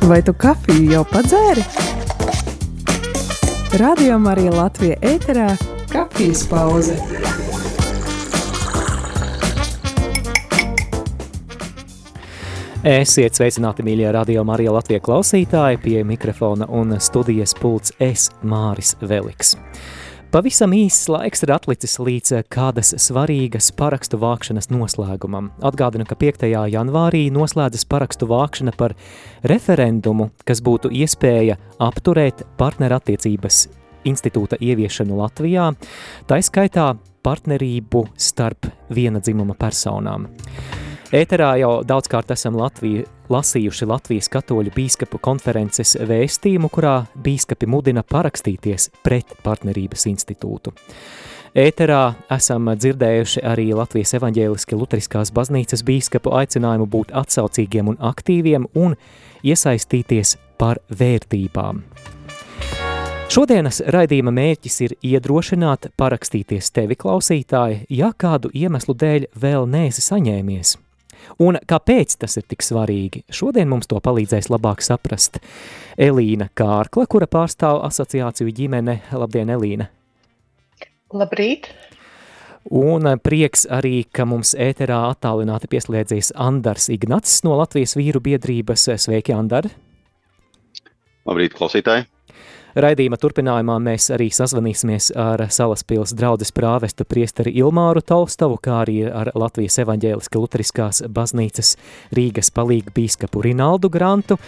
Vai tu kafiju jau padzēri? Radio Marija Latvija ēterā kafijas pauze. Esiet sveicināti, mīļie Radio Marija Latvija klausītāji, pie mikrofona un studijas pults es, Māris Veliks. Pavisam īsts laiks ir atlicis līdz kādas svarīgas parakstu vākšanas noslēgumam. Atgādinu, ka 5. janvārī noslēdzas parakstu vākšana par referendumu, kas būtu iespēja apturēt partnerattiecības institūta ieviešanu Latvijā, taiskaitā partnerību starp viena dzimuma personām. Ēterā jau daudzkārt esam lasījuši Latvijas katoļu bīskapu konferences vēstījumu, kurā bīskapi mudina parakstīties pret partnerības institūtu. Ēterā esam dzirdējuši arī Latvijas evaņģēliski luteriskās baznīcas bīskapu aicinājumu būt atsaucīgiem un aktīviem un iesaistīties par vērtībām. Šodienas raidījuma mērķis ir iedrošināt parakstīties tevi, klausītāji, ja kādu iemeslu dēļ vēl neesi saņēmies. Un kāpēc tas ir tik svarīgi? Šodien mums to palīdzēs labāk saprast Elīna Kārkla, kura pārstāv asociāciju ģimene. Labdien, Elīna! Labrīt! Un prieks arī, ka mums ēterā attālināti pieslēdzies Andars Ignats no Latvijas vīru biedrības. Sveiki, Andar! Labrīt, klausītāji! Raidījuma turpinājumā mēs arī sazvanīsimies ar Salaspils draudzes prāvestu priesteri Ilmāru Tolstovu, kā arī ar Latvijas evaņģēliski luteriskās baznīcas Rīgas palīgu bīskapu Rinaldu Grantu,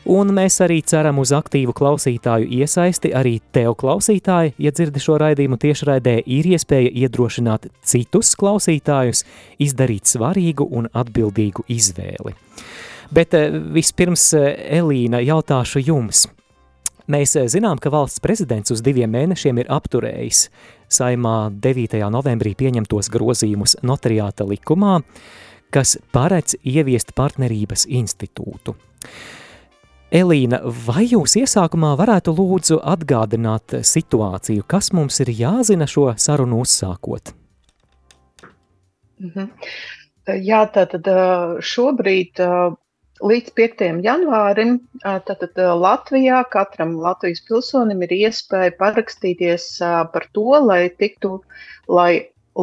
un mēs arī ceram uz aktīvu klausītāju iesaisti. Arī tev, klausītāji, ja dzirdi šo raidījumu tiešraidē, ir iespēja iedrošināt citus klausītājus izdarīt svarīgu un atbildīgu izvēli. Bet vispirms, Elīna, jautāšu jums. Mēs zinām, ka valsts prezidents uz 2 mēnešiem ir apturējis Saeimā 9. novembrī pieņemtos grozījumus notariāta likumā, kas paredz ieviest partnerības institūtu. Elīna, vai jūs iesākumā varētu lūdzu atgādināt situāciju, kas mums ir jāzina šo sarunu uzsākot? Jā, tātad šobrīd līdz 5. janvārim tātad Latvijā katram Latvijas pilsonim ir iespēja parakstīties par to, lai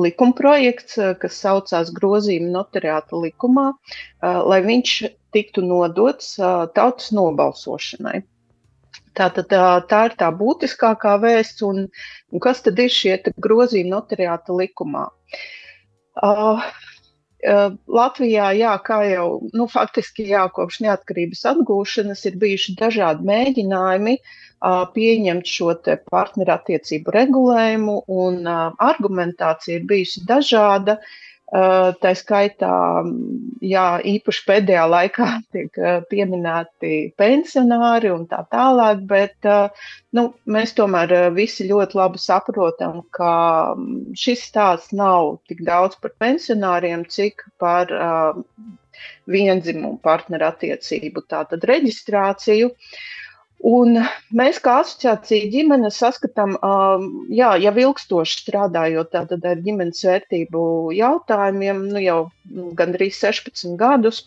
likumprojekts, kas saucās grozījumi notariāta likumā, lai viņš tiktu nodots tautas nobalsošanai. Tātad tā ir tā būtiskākā vēsts, un kas tad ir šie grozījumi notariāta likumā? Latvijā, kā jau, faktiski kopš neatkarības atgūšanas ir bijuši dažādi mēģinājumi pieņemt šo te partnerattiecību regulējumu, un argumentācija ir bijusi dažāda. Tā skaitā, īpaši pēdējā laikā tiek pieminēti pensionāri un tā tālāk, bet mēs tomēr visi ļoti labi saprotam, ka šis stāsts nav tik daudz par pensionāriem, cik par viendzimumu partnerattiecību, tātad reģistrāciju. Un mēs kā asociācija ģimene saskatām, jau ilgstoši strādājot tātad ar ģimenes vērtību jautājumiem, jau gandrīz 16 gadus.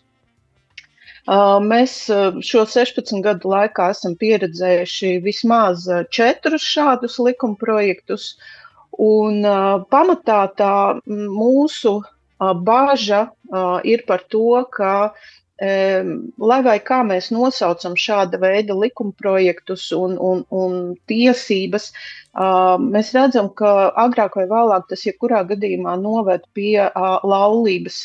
Mēs šo 16 gadu laikā esam pieredzējuši vismaz 4 šādus likumprojektus, un pamatā tā mūsu baža ir par to, ka lai vai kā mēs nosaucam šāda veida likumprojektus un tiesības, mēs redzam, ka agrāk vai vēlāk tas jebkurā gadījumā noved pie laulības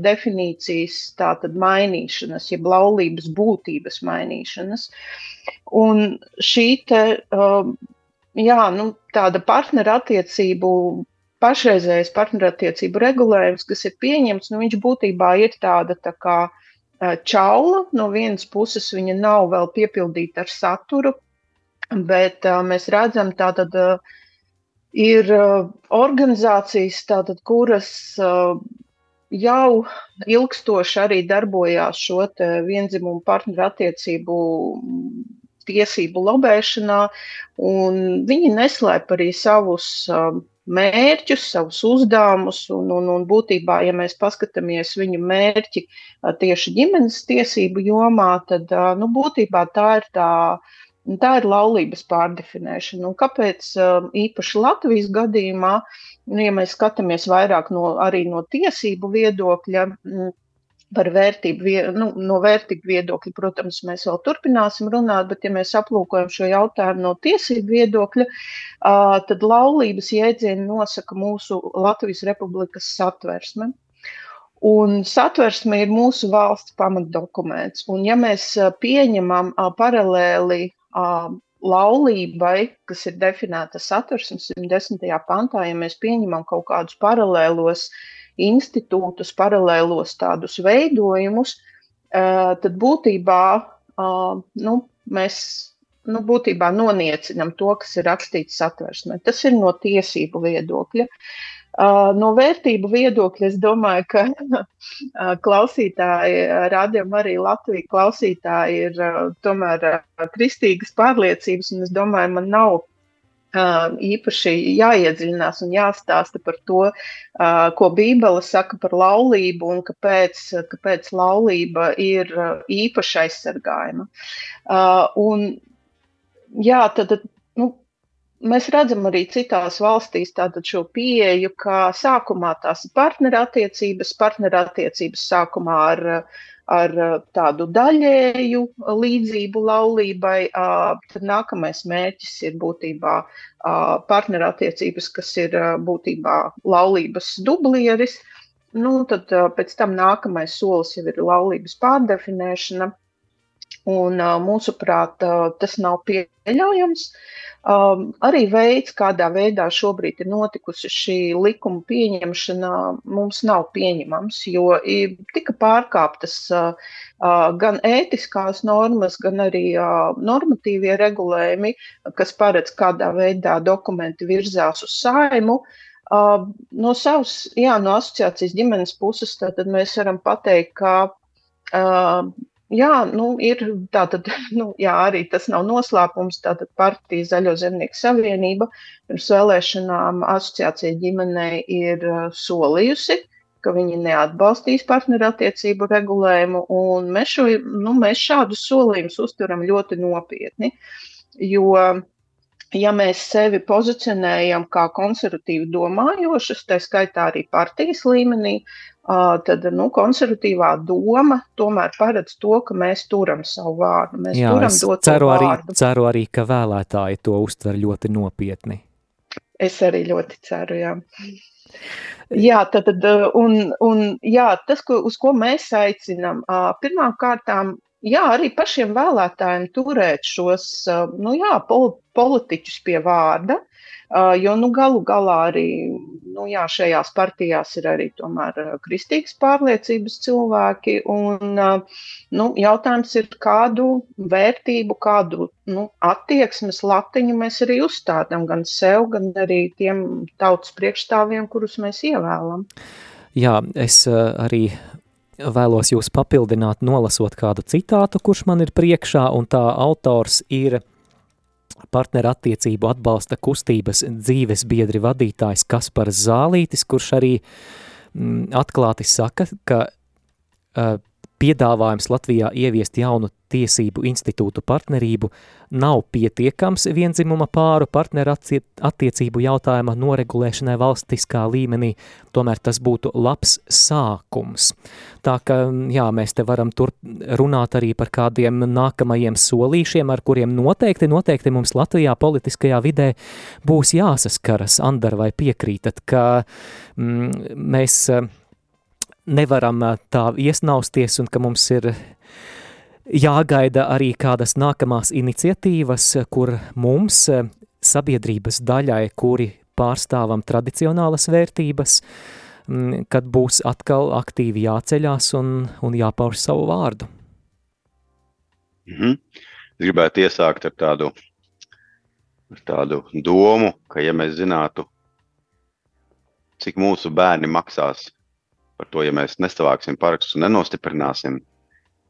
definīcijas tātad mainīšanas, jeb laulības būtības mainīšanas. Un šī tāda pašreizējais partnerattiecību regulējums, kas ir pieņemts, viņš būtībā ir tāda tā kā čaula. No vienas puses viņa nav vēl piepildīta ar saturu, bet mēs redzam, tātad ir organizācijas, tātad, kuras jau ilgstoši arī darbojās šo te viendzimumu partnerattiecību tiesību lobēšanā, un viņi neslēp arī savus mērķus, savus uzdevumus, un būtībā, ja mēs paskatāmies viņu mērķi tieši ģimenes tiesību jomā, tad būtībā tā ir laulības pārdefinēšana. Un kāpēc īpaši Latvijas gadījumā, ja mēs skatāmies vairāk arī no tiesību viedokļa, par no vērtību viedokļa, protams, mēs vēl turpināsim runāt, bet ja mēs aplūkojam šo jautājumu no tiesību viedokļa, tad laulības jēdzienu nosaka mūsu Latvijas Republikas satversme. Un satversme ir mūsu valsts pamatdokuments. Un ja mēs pieņemam paralēli laulībai, kas ir definēta satversmes 110. pantā, ja mēs pieņemam kaut kādus paralēlos institūtus, paralēlos tādus veidojumus, tad būtībā mēs būtībā noniecinam to, kas ir rakstīts satversmē. Tas ir no tiesību viedokļa. No vērtību viedokļa es domāju, ka klausītāji, rādījumā arī Latvija klausītāji ir tomēr kristīgas pārliecības, un es domāju, man nav īpaši jāiedziļinās un jāstāsta par to, ko Bībele saka par laulību un kāpēc laulība ir īpaši aizsargājama. Un jā, tad mēs redzam arī citās valstīs tātad šo pieeju, ka sākumā tās ir partnerattiecības sākumā ar tādu daļēju līdzību laulībai, tad nākamais mērķis ir būtībā partnerattiecības, kas ir būtībā laulības dublieris, tad pēc tam nākamais solis jau ir laulības pārdefinēšana, un mūsuprāt tas nav pieļaujams. Arī veids, kādā veidā šobrīd ir notikusi šī likuma pieņemšana, mums nav pieņemams, jo tika pārkāptas gan ētiskās normas, gan arī normatīvie regulējumi, kas paredz, kādā veidā dokumenti virzās uz Saeimu. No asociācijas ģimenes puses tātad mēs varam pateikt, ka ir tātad, arī tas nav noslēpums, tātad partija Zaļo zemnieku savienība pirms vēlēšanām asociācija ģimenei ir solījusi, ka viņi neatbalstīs partnerattiecību regulējumu, un mēs šādus solījumus uztveram ļoti nopietni, jo, ja mēs sevi pozicionējam kā konservatīvi domājošas, tā skaitā arī partijas līmenī, tad konservatīvā doma tomēr paredz to, ka mēs turam savu vārdu. Mēs turam doto vārdu. Ceru arī, ka vēlētāji to uztver ļoti nopietni. Es arī ļoti ceru, jā. Jā, tas, uz ko mēs aicinām, pirmām kārtām, arī pašiem vēlētājiem turēt šos, politiķus pie vārda, jo, galu galā arī, šajās partijās ir arī tomēr kristīgas pārliecības cilvēki, un, jautājums ir, kādu vērtību, kādu, attieksmes latiņu mēs arī uzstādām gan sev, gan arī tiem tautas priekšstāvjiem, kurus mēs ievēlam. Jā, es arī vēlos jūs papildināt, nolasot kādu citātu, kurš man ir priekšā, un tā autors ir partnerattiecību atbalsta kustības dzīves biedri vadītājs Kaspars Zālītis, kurš arī atklāti saka, ka piedāvājums Latvijā ieviest jaunu tiesību institūtu partnerību nav pietiekams vienzimuma pāru partnerattiecību jautājuma noregulēšanai valstiskā līmenī, tomēr tas būtu labs sākums. Tā ka, mēs te varam runāt arī par kādiem nākamajiem solīšiem, ar kuriem noteikti mums Latvijā politiskajā vidē būs jāsaskaras. Andar, vai piekrītat, ka mēs nevaram tā iesnausties un ka mums ir jāgaida arī kādas nākamās iniciatīvas, kur mums, sabiedrības daļai, kuri pārstāvam tradicionālas vērtības, kad būs atkal aktīvi jāceļās un jāpauž savu vārdu. Es gribētu iesākt ar tādu domu, ka ja mēs zinātu, cik mūsu bērni maksās par to, ja mēs nesavāksim parakstus un nenostiprināsim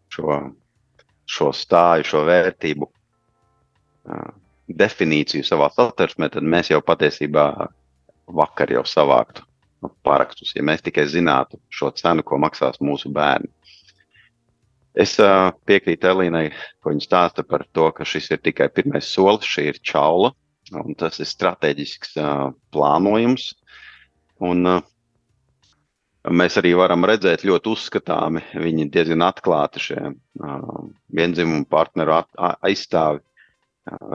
šo stāju, šo vērtību definīciju savā satversmē, tad mēs jau patiesībā vakar jau savāktu parakstus, ja mēs tikai zinātu šo cenu, ko maksās mūsu bērni. Es piekrītu Elīnai, ko viņa stāsta par to, ka šis ir tikai pirmais solis, šī ir čaula, un tas ir strateģisks plānojums. Un mēs arī varam redzēt ļoti uzskatāmi, viņi diezgan atklāti šie viendzimumu partneru aizstāvi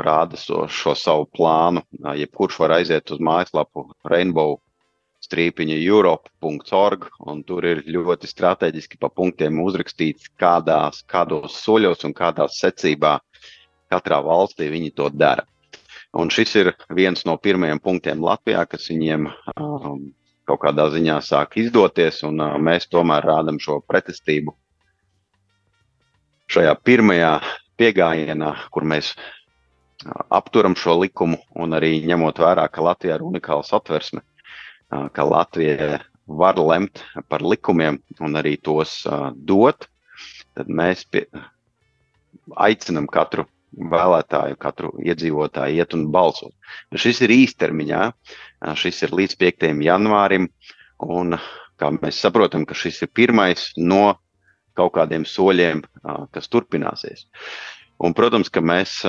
rāda šo savu plānu. Jebkurš var aiziet uz mājaslapu rainbow-europe.org, un tur ir ļoti strateģiski pa punktiem uzrakstīts, kādos soļos un kādās secībā katrā valstī viņi to dara. Un šis ir viens no pirmajiem punktiem Latvijā, kas viņiem kaut kādā ziņā sāk izdoties, un mēs tomēr rādam šo pretestību šajā pirmajā piegājienā, kur mēs apturam šo likumu, un arī ņemot vērā, ka Latvijā ir unikāla satversme, ka Latvija var lemt par likumiem un arī tos dot, tad mēs aicinam katru vēlētāju, katru iedzīvotāju iet un balsot. Šis ir īstermiņā, šis ir līdz 5. janvārim, un kā mēs saprotam, ka šis ir pirmais no kaut kādiem soļiem, kas turpināsies. Un, protams, ka mēs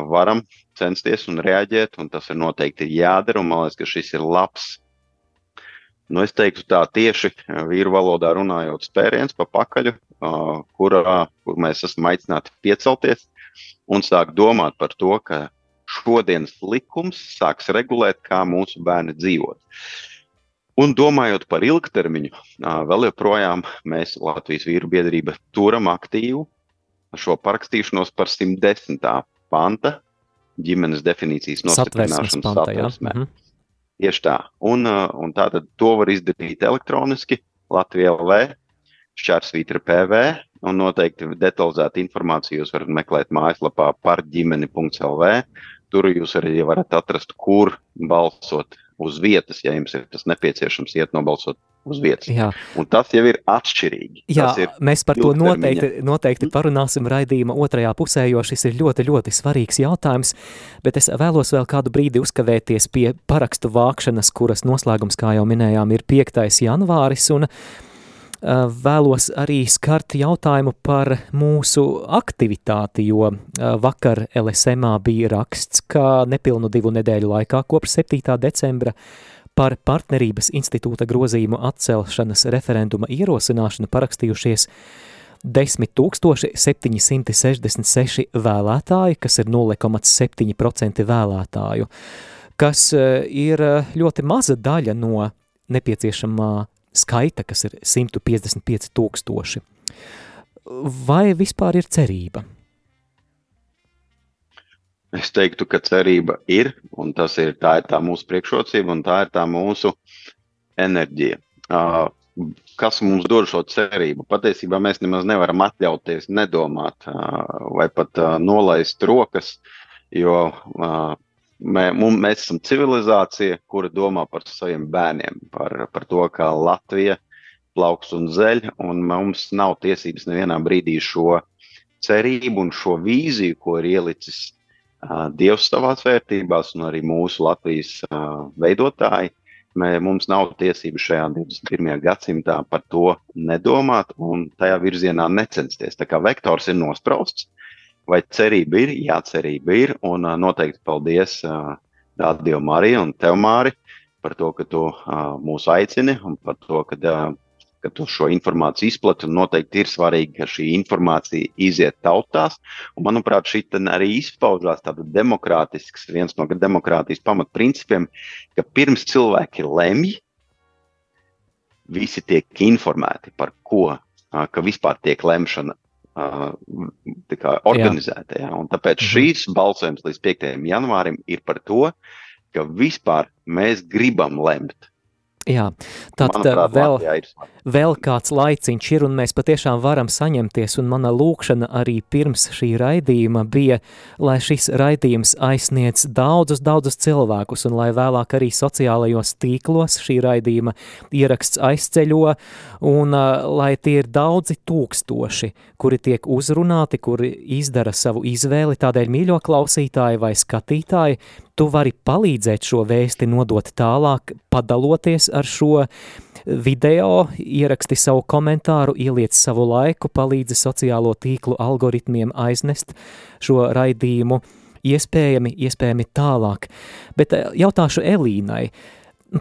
varam censties un reaģēt, un tas ir noteikti jādara, un man liekas, ka šis ir labs, es teiktu tā tieši vīru valodā runājot spēriens pa pakaļu, kur mēs esam aicināti piecelties un sāk domāt par to, ka šodienas likums sāks regulēt, kā mūsu bērni dzīvot. Un domājot par ilgtermiņu, vēl joprojām mēs Latvijas vīru biedrība turam aktīvu šo parakstīšanos par 110. panta ģimenes definīcijas nostiprināšanas satversmē. Tieši tā. Un tātad to var izdarīt elektroniski Latvija LV, / PV, un noteikti detalizētu informāciju jūs varat meklēt mājaslapā parģimeni.lv. Tur jūs arī varat atrast, kur balsot uz vietas, ja jums ir tas nepieciešams iet nobalsot uz vietas. Jā. Un tas jau ir atšķirīgi. Jā, mēs par to noteikti parunāsim raidījuma otrajā pusē, jo šis ir ļoti, ļoti svarīgs jautājums, bet es vēlos vēl kādu brīdi uzkavēties pie parakstu vākšanas, kuras noslēgums, kā jau minējām, ir 5. janvāris, un vēlos arī skart jautājumu par mūsu aktivitāti, jo vakar LSMā bija raksts, ka nepilnu 2 nedēļu laikā kopš 7. decembra par partnerības institūta grozījumu atcelšanas referenduma ierosināšanu parakstījušies 10,766 vēlētāji, kas ir 0,7% vēlētāju, kas ir ļoti maza daļa no nepieciešamā skaita, kas ir 155,000. Vai vispār ir cerība? Es teiktu, ka cerība ir, un tā ir tā mūsu priekšrocība, un tā ir tā mūsu enerģija. Kas mums dod šo cerību? Patiesībā mēs nemaz nevaram atļauties nedomāt vai pat nolaist rokas, jo mēs esam civilizācija, kura domā par saviem bērniem, par to, kā Latvija plauks un zeļ, un mums nav tiesības nevienā brīdī šo cerību un šo vīziju, ko ir ielicis Dievs savās vērtībās un arī mūsu Latvijas veidotāji. Mums nav tiesības šajā 21. gadsimtā par to nedomāt un tajā virzienā necensties. Tā kā vektors ir nosprausts, vai cerība ir? Jā, cerība ir, un noteikti paldies Radio Marija un tev, Māri, par to, ka tu mūs aicini un par to, ka tu šo informāciju izplati, un noteikti ir svarīgi, ka šī informācija iziet tautās, un manuprāt, šī arī izpaužās tāda demokrātisks, viens no demokrātijas pamatprincipiem, ka pirms cilvēki lemj, visi tiek informēti par ko, ka vispār tiek lemšana organizēta. Jā. Un tāpēc šīs balsojums līdz 5. janvārim ir par to, ka vispār mēs gribam lemt. Jā, tad vēl kāds laiciņš ir, un mēs patiešām varam saņemties, un mana lūkšana arī pirms šī raidījuma bija, lai šis raidījums aizsniedz daudzus cilvēkus, un lai vēlāk arī sociālajos tīklos šī raidījuma ieraksts aizceļo, un lai tie ir daudzi tūkstoši, kuri tiek uzrunāti, kuri izdara savu izvēli, tādēļ mīļo klausītāji vai skatītāji, tu vari palīdzēt šo vēsti nodot tālāk, padaloties ar šo video, ieraksti savu komentāru, ieliec savu laiku, palīdzi sociālo tīklu algoritmiem aiznest šo raidījumu iespējami tālāk. Bet jautāšu Elīnai,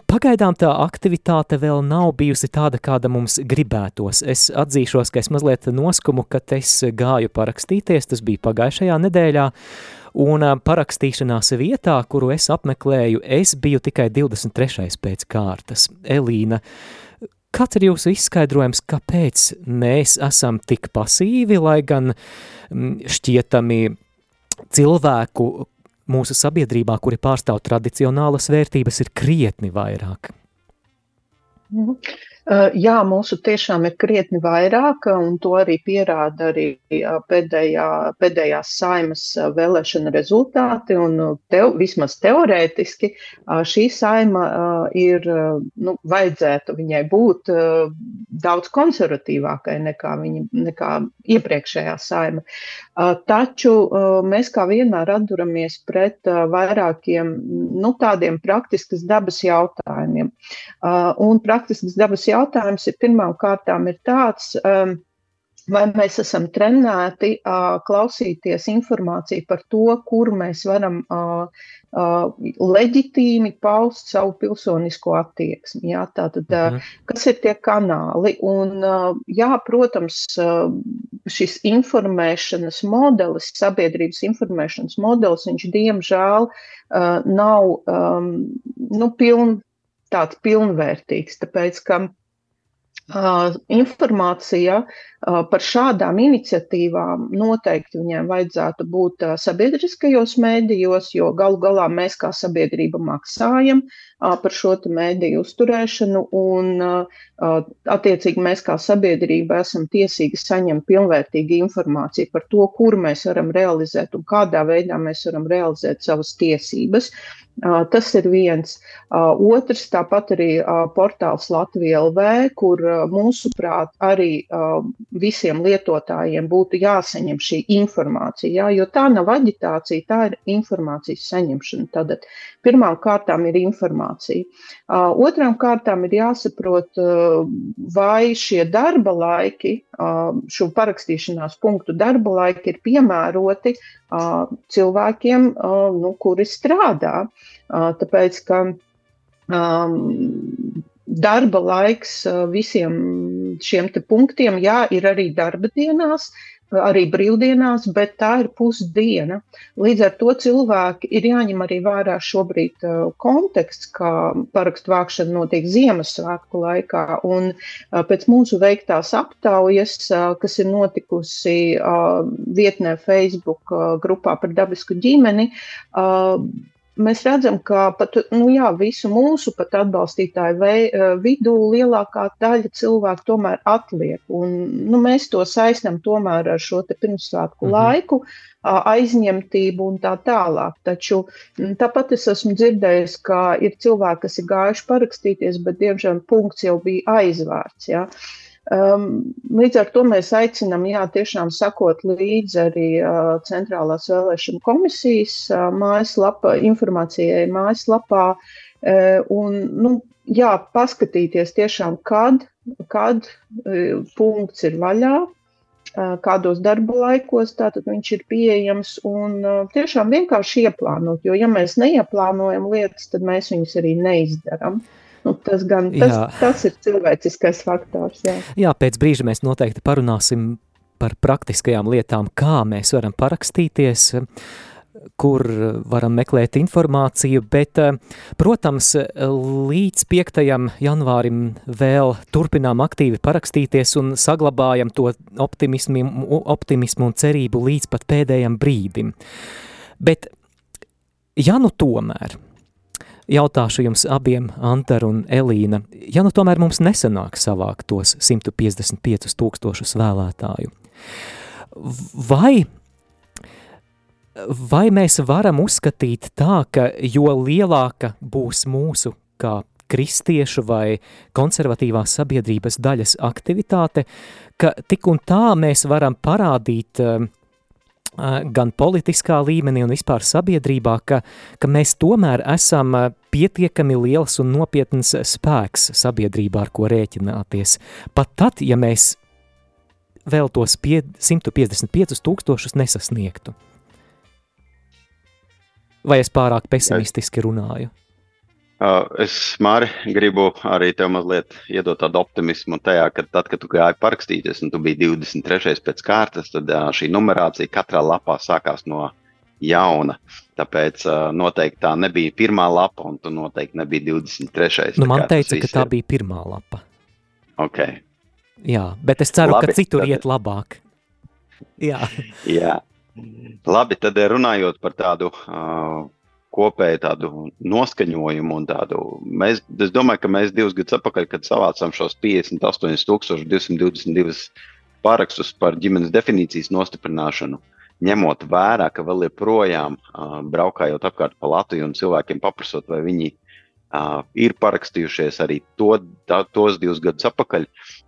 pagaidām tā aktivitāte vēl nav bijusi tāda, kāda mums gribētos. Es atzīšos, ka es mazliet noskumu, kad es gāju parakstīties, tas bija pagājušajā nedēļā, un parakstīšanās vietā, kuru es apmeklēju, es biju tikai 23. pēc kārtas. Elīna, kāds ir jūsu izskaidrojums, kāpēc mēs esam tik pasīvi, lai gan šķietami cilvēku mūsu sabiedrībā, kuri pārstāv tradicionālas vērtības, ir krietni vairāk? Jā, mūsu tiešām ir krietni vairāk, un to arī pierāda arī pēdējās Saeimas vēlēšana rezultāti, un vismaz teorētiski šī Saeima ir, vajadzētu viņai būt daudz konservatīvākai nekā iepriekšējā Saeima. Taču mēs kā vienmēr atduramies pret vairākiem, tādiem praktiskas dabas jautājumiem. Un praktiskas dabas jautājums ir pirmām kārtām ir tāds, vai mēs esam trenēti klausīties informāciju par to, kur mēs varam leģitīmi paust savu pilsonisko attieksmi. Jā, tātad, kas ir tie kanāli? Un, protams, šis informēšanas modelis, sabiedrības informēšanas modelis, viņš diemžēl nav tāds pilnvērtīgs, tāpēc, ka informācija par šādām iniciatīvām noteikti viņiem vajadzētu būt sabiedriskajos mēdījos, jo galu galā mēs kā sabiedrība maksājam par šo mēdīju uzturēšanu, un attiecīgi mēs kā sabiedrība esam tiesīgi saņemt pilnvērtīgu informāciju par to, kur mēs varam realizēt un kādā veidā mēs varam realizēt savas tiesības. Tas ir viens. Otrs, tāpat arī portāls Latvija LV, kur mūsuprāt arī visiem lietotājiem būtu jāsaņem šī informācija, jo tā nav aģitācija, tā ir informācijas saņemšana. Tātad pirmām kārtām ir informācija. Otrām kārtām ir jāsaprot, vai šie darba laiki, šo parakstīšanās punktu darba laiki ir piemēroti cilvēkiem, kuri strādā. Tāpēc, ka darba laiks visiem šiem te punktiem, ir arī darba dienās, arī brīvdienās, bet tā ir pusdiena. Līdz ar to cilvēki ir jāņem arī vērā šobrīd konteksts, kā parakstu vākšana notiek Ziemassvētku laikā, un pēc mūsu veiktās aptaujas, kas ir notikusi vietnē Facebook grupā par dabisku ģimeni, mēs redzam, ka pat, visu mūsu pat atbalstītāju vidū lielākā daļa cilvēku tomēr atliek. Un, mēs to saistam tomēr ar šo te pirmsvētku laiku, aizņemtību un tā tālāk. Taču tāpat es esmu dzirdējis, ka ir cilvēki, kas ir gājuši parakstīties, bet diemžēl punkts jau bija aizvērts. Ja? Līdz ar to mēs aicinām, tiešām sakot līdzi arī Centrālās vēlēšana komisijas informācijai mājaslapā un, paskatīties tiešām, kad punkts ir vaļā, kādos darba laikos, tātad viņš ir pieejams un tiešām vienkārši ieplānot, jo ja mēs neieplānojam lietas, tad mēs viņus arī neizdaram. Tas ir cilvēciskais faktors. Jā, pēc brīža mēs noteikti parunāsim par praktiskajām lietām, kā mēs varam parakstīties, kur varam meklēt informāciju, bet, protams, līdz 5. janvārim vēl turpinām aktīvi parakstīties un saglabājam to optimismu un cerību līdz pat pēdējam brīdim. Bet, tomēr, jautāšu jums abiem, Antar un Elīna, tomēr mums nesanāk savākt tos 155 000 vēlētāju, vai mēs varam uzskatīt tā, ka jo lielāka būs mūsu kā kristiešu vai konservatīvās sabiedrības daļas aktivitāte, ka tik un tā mēs varam parādīt gan politiskā līmenī un vispār sabiedrībā, ka mēs tomēr esam pietiekami liels un nopietns spēks sabiedrībā, ar ko rēķināties. Pat tad, ja mēs vēl tos 155,000 nesasniegtu. Vai es pārāk pesimistiski runāju? Es, Māri, gribu arī tev mazliet iedot tādu optimismu tajā, ka tad, kad tu gāji parakstīties un tu biji 23. pēc kārtas, tad šī numerācija katrā lapā sākās no jauna. Tāpēc noteikti tā nebija pirmā lapa un tu noteikti nebija 23. Nu, man teica, ka tā bija pirmā lapa. Ok. Jā, bet es ceru, ka citur iet labāk. Jā. Jā. Labi, tad runājot par tādu kopēju tādu noskaņojumu un tādu, es domāju, ka mēs 2 gadus atpakaļ, kad savācām šos 58,222 pārakstus par ģimenes definīcijas nostiprināšanu, ņemot vērā, ka vēl joprojām braukājot apkārt pa Latviju un cilvēkiem paprasot, vai viņi ir parakstījušies arī tos 2 gadus atpakaļ,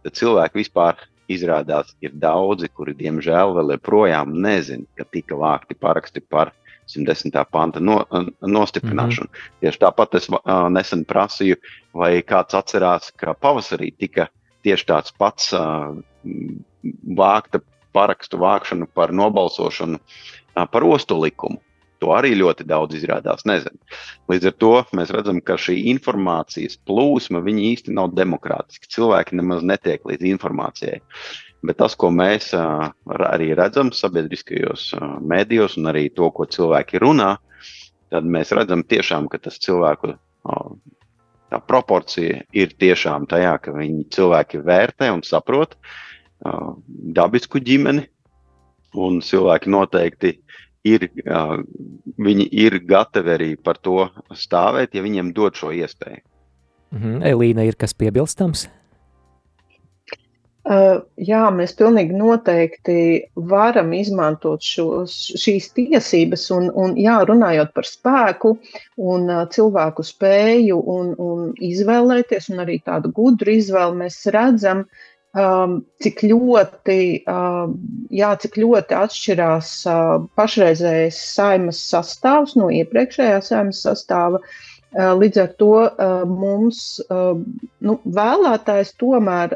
tad cilvēki vispār izrādās ir daudzi, kuri diemžēl vēl joprojām nezin, ka tika vākti paraksti par 110. panta nostiprināšanu. Tieši tāpat es nesen prasīju, vai kāds atcerās, ka pavasarī tika tieši tāds pats vākta parakstu vākšanu par nobalsošanu par ostu likumu. To arī ļoti daudz izrādās nezinu. Līdz ar to mēs redzam, ka šī informācijas plūsma, viņi īsti nav demokrātiski. Cilvēki nemaz netiek līdz informācijai. Bet tas, ko mēs arī redzam sabiedriskajos mēdījos un arī to, ko cilvēki runā, tad mēs redzam tiešām, ka tas cilvēku tā proporcija ir tiešām tajā, ka cilvēki vērtē un saprot dabisku ģimeni, un cilvēki noteikti viņi ir gatavi arī par to stāvēt, ja viņiem dod šo iespēju. Elīna, ir kas piebilstams? Jā, mēs pilnīgi noteikti varam izmantot šīs tiesības un jā, runājot par spēku un cilvēku spēju un izvēlēties un arī tādu gudru izvēli, mēs redzam, cik ļoti atšķirās pašreizējais Saeimas sastāvs no iepriekšējā Saeimas sastāva. Līdz ar to mums vēlētājs tomēr,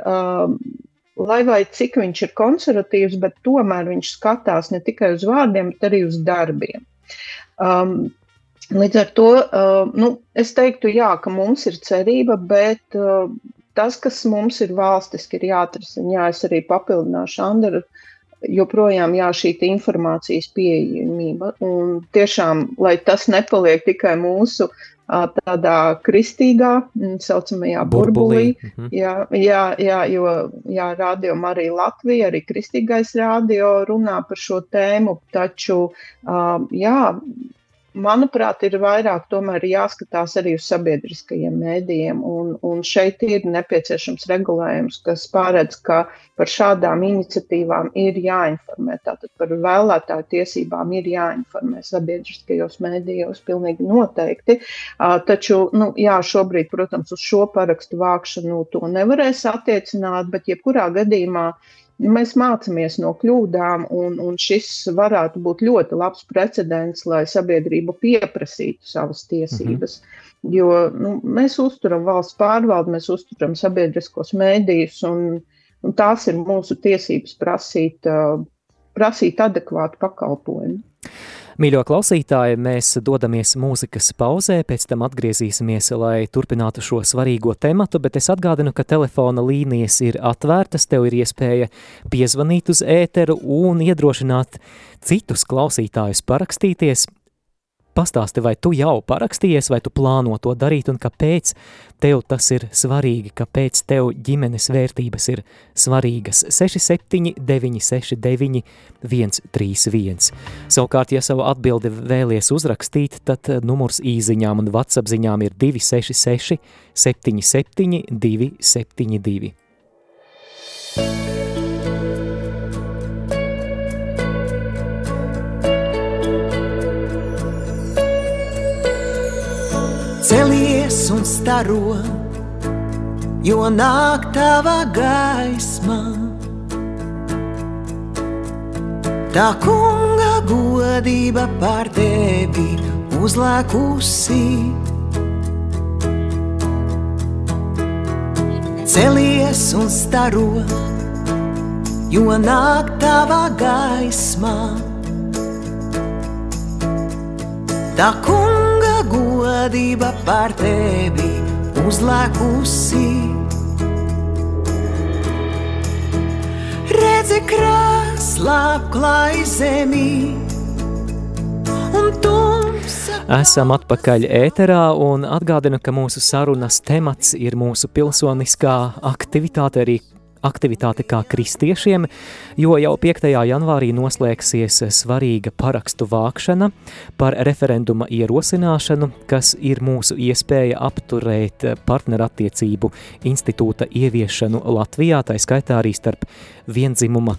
lai vai cik viņš ir konservatīvs, bet tomēr viņš skatās ne tikai uz vārdiem, bet arī uz darbiem. Līdz ar to, es teiktu, jā, ka mums ir cerība, bet tas, kas mums ir valstiski, ir jāatrisina. Jā, es arī papildināšu Anderu, joprojām šī informācijas pieejamība. Un tiešām, lai tas nepaliek tikai mūsu tādā kristīgā, saucamajā burbulī. Jo Radio Marija Latvija, arī kristīgais radio runā par šo tēmu, taču, manuprāt, ir vairāk tomēr jāskatās arī uz sabiedriskajiem mēdījiem, un šeit ir nepieciešams regulējums, kas paredz, ka par šādām iniciatīvām ir jāinformē, tātad par vēlētāju tiesībām ir jāinformē sabiedriskajos mēdījos, pilnīgi noteikti, taču, šobrīd, protams, uz šo parakstu vākšanu to nevarēs attiecināt, bet jebkurā gadījumā mēs mācāmies no kļūdām, un šis varētu būt ļoti labs precedents, lai sabiedrība pieprasītu savas tiesības. Jo mēs uzturam valsts pārvaldi, mēs uzturam sabiedriskos mēdījus, un tās ir mūsu tiesības prasīt adekvātu pakalpojumu. Mīļo klausītāji, mēs dodamies mūzikas pauzē, pēc tam atgriezīsimies, lai turpinātu šo svarīgo tematu, bet es atgādinu, ka telefona līnijas ir atvērtas, tev ir iespēja piezvanīt uz ēteru un iedrošināt citus klausītājus parakstīties. Pastāsti, vai tu jau parakstījies, vai tu plāno to darīt, un kāpēc tev tas ir svarīgi, kāpēc tev ģimenes vērtības ir svarīgas. 67969131. Savukārt, ja savu atbildi vēlies uzrakstīt, tad numurs īziņām un WhatsApp ziņām ir 266 77 272. Celies un staro, jo nāk tava gaisma. Tā kunga godība pār tevi uzlēkusi. Celies un staro, jo nāk tava gaismā. Tā kunga godība pār tevi uzlēkusi. Redzi krāslā apklāj zemi un tumsa. Esam atpakaļ ēterā un atgādinu, ka mūsu sarunas temats ir mūsu pilsoniskā aktivitāte, arī aktivitāte kā kristiešiem, jo jau 5. janvārī noslēgsies svarīga parakstu vākšana par referenduma ierosināšanu, kas ir mūsu iespēja apturēt partnerattiecību institūta ieviešanu Latvijā, tā skaitā arī starp viendzimuma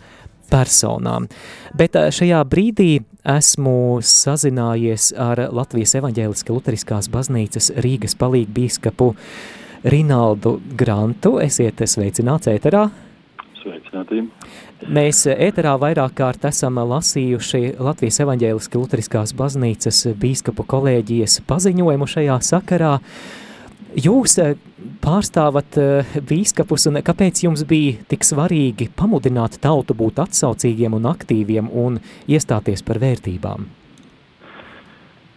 personām. Bet šajā brīdī esmu sazinājies ar Latvijas evaņģēliskās luteriskās baznīcas Rīgas palīgbīskapu Rinaldu Grantu. Esiet sveicināts ēterā. Sveicināti. Mēs ēterā vairāk kārt esam lasījuši Latvijas evaņģēliskās luteriskās baznīcas bīskapu kolēģijas paziņojumu šajā sakarā. Jūs pārstāvat bīskapus, un kāpēc jums bija tik svarīgi pamudināt tautu būt atsaucīgiem un aktīviem un iestāties par vērtībām?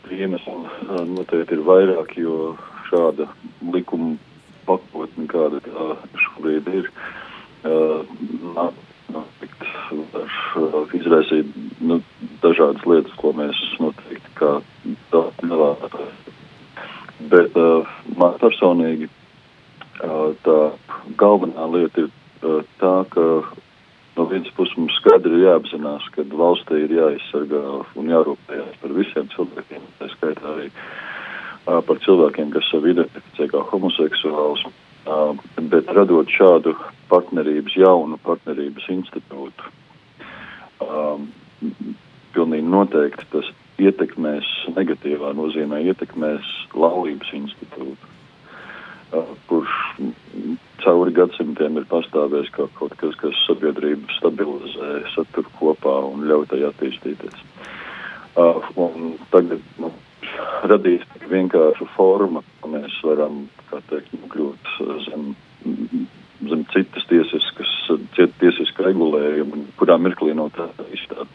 Iemesli noteikti ir vairāk, jo šāda likuma pakotne, kāda šobrīd ir, izraisīt dažādas lietas, ko mēs noteikti kā nevēlētāji. Bet man personīgi tā galvenā lieta ir tā, ka no vienas puses mums skaidri ir jāapzinās, ka valstī ir jāizsargā un jārūpējās par visiem cilvēkiem, tā skaitā arī par cilvēkiem, kas sevi identificē kā homoseksuāls, bet radot šādu jaunu partnerības institūtu, pilnīgi noteikti tas negatīvā nozīmē ietekmēs laulības institūtu, kurš cauri gadsimtiem ir pastāvējis kā kaut kas, kas sabiedrību stabilizē, satur kopā un ļauj tai attīstīties. Un tagad radīt vienkāršu formu, ka mēs varam, kā teikt, nokļūt zem citas tiesiska regulējuma, kurā mirklī no tā izstāda.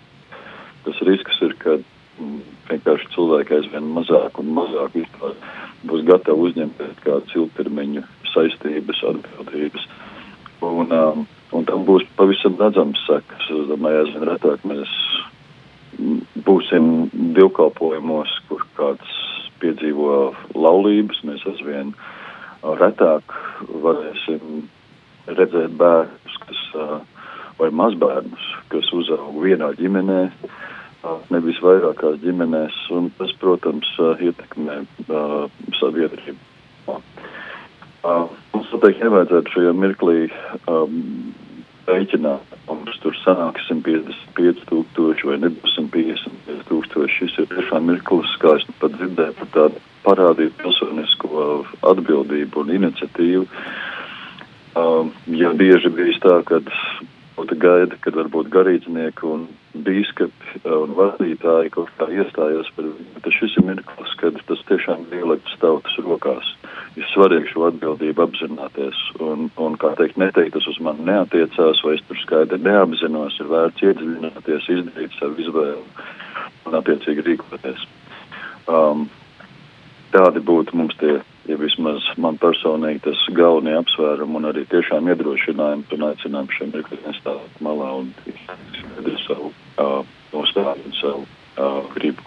Tas risks ir, ka vienkārši cilvēki aizvien mazāk un mazāk vispār būs gatavi uzņemt kādas ilgtermiņa saistības, atbildības. Un tam būs pavisam redzams sekas. Es domāju, aizvien retāk mēs būsim divkalpojumos, kur kāds piedzīvo laulības, mēs aizvien retāk varēsim redzēt bērnus, vai mazbērnus, kas uzaug vienā ģimenē, nevis vairākās ģimenēs, un tas, protams, ietekmē sabiedrību. Mums noteikti nevajadzētu šajā mirklī rēķināt, mums tur sanāk 155,000 vai nebūs 155,000. Šis ir tiešām mirklis, kā es pat dzirdēju, par tādu parādīt pilsonisko atbildību un iniciatīvu. Ja bieži bijis tā, kad būtu gaida, kad varbūt garīdznieki un bīskapi un vadītāji kaut kā iestājās par viņu, bet šis ir mirklis, kad tas tiešām ir ielikts tautas rokās. Ir svarīgi šo atbildību apzināties un kā teikt, tas uz mani neatiecās, vai es tur skaidri neapzinos, ir vērts iedziļināties, izdarīt savu izvēlu un attiecīgi rīkoties. Tādi būtu mums tie, ja vismaz man personīgi tas galvenie apsvērumi un arī tiešām iedrošinājumi un aicinājumi šiem mirkli nestāvēt malā un izskaidri savu nostāju un savu gribu.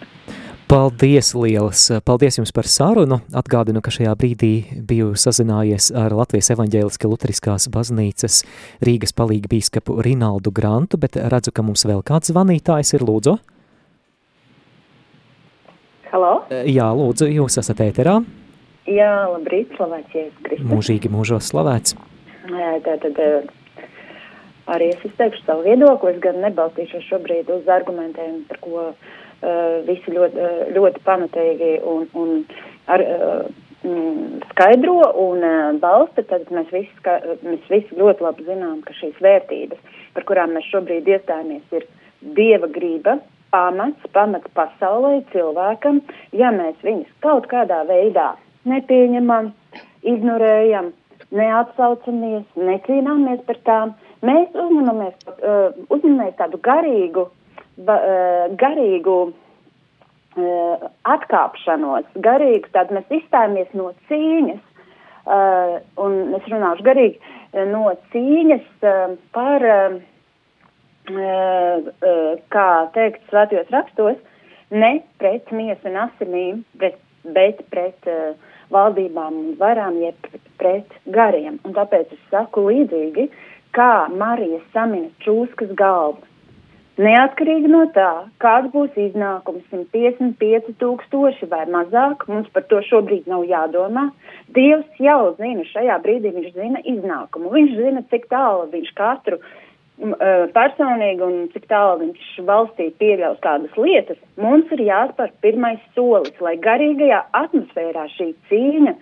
Paldies lielas! Paldies jums par sarunu. Atgādinu, ka šajā brīdī biju sazinājies ar Latvijas evaņģēliskās luteriskās baznīcas Rīgas palīgbīskapu Rinaldu Grantu, bet redzu, ka mums vēl kāds zvanītājs ir, lūdzu. Halo? Jā, lūdzu, jūs esat ēterā. Jā, labrīt, slavēts Jēzus Kristus. Mūžīgi mūžos slavēts. Tātad arī es izteikšu savu viedokli, es gan nebalstīšos šobrīd uz argumentiem, par ko visi ļoti pamatīgi un skaidro un balsta, tad mēs visi ļoti labi zinām, ka šīs vērtības, par kurām mēs šobrīd iestājamies, ir Dieva grība, pamats pasaulē cilvēkam, ja mēs viņus kaut kādā veidā nepieņemam, ignorējam, neatsaucamies, necīnāmies par tām, mēs uzņemamies tādu garīgu atkāpšanos, tad mēs izstājamies no cīņas, un es runāšu garīgi, no cīņas par, kā teikt svētajos rakstos, ne pret miesu un asinīm, bet pret valdībām un varām, jeb pret gariem. Un tāpēc es saku līdzīgi, kā Marija samina čūskas galvu. Neatkarīgi no tā, kāds būs iznākums 155,000 vai mazāk, mums par to šobrīd nav jādomā. Dievs jau zina, šajā brīdī viņš zina iznākumu. Viņš zina, cik tālu viņš katru personīgi un cik tālu viņš valstī pieļaus kādas lietas. Mums ir jāspēr pirmais solis, lai garīgajā atmosfērā šī cīņa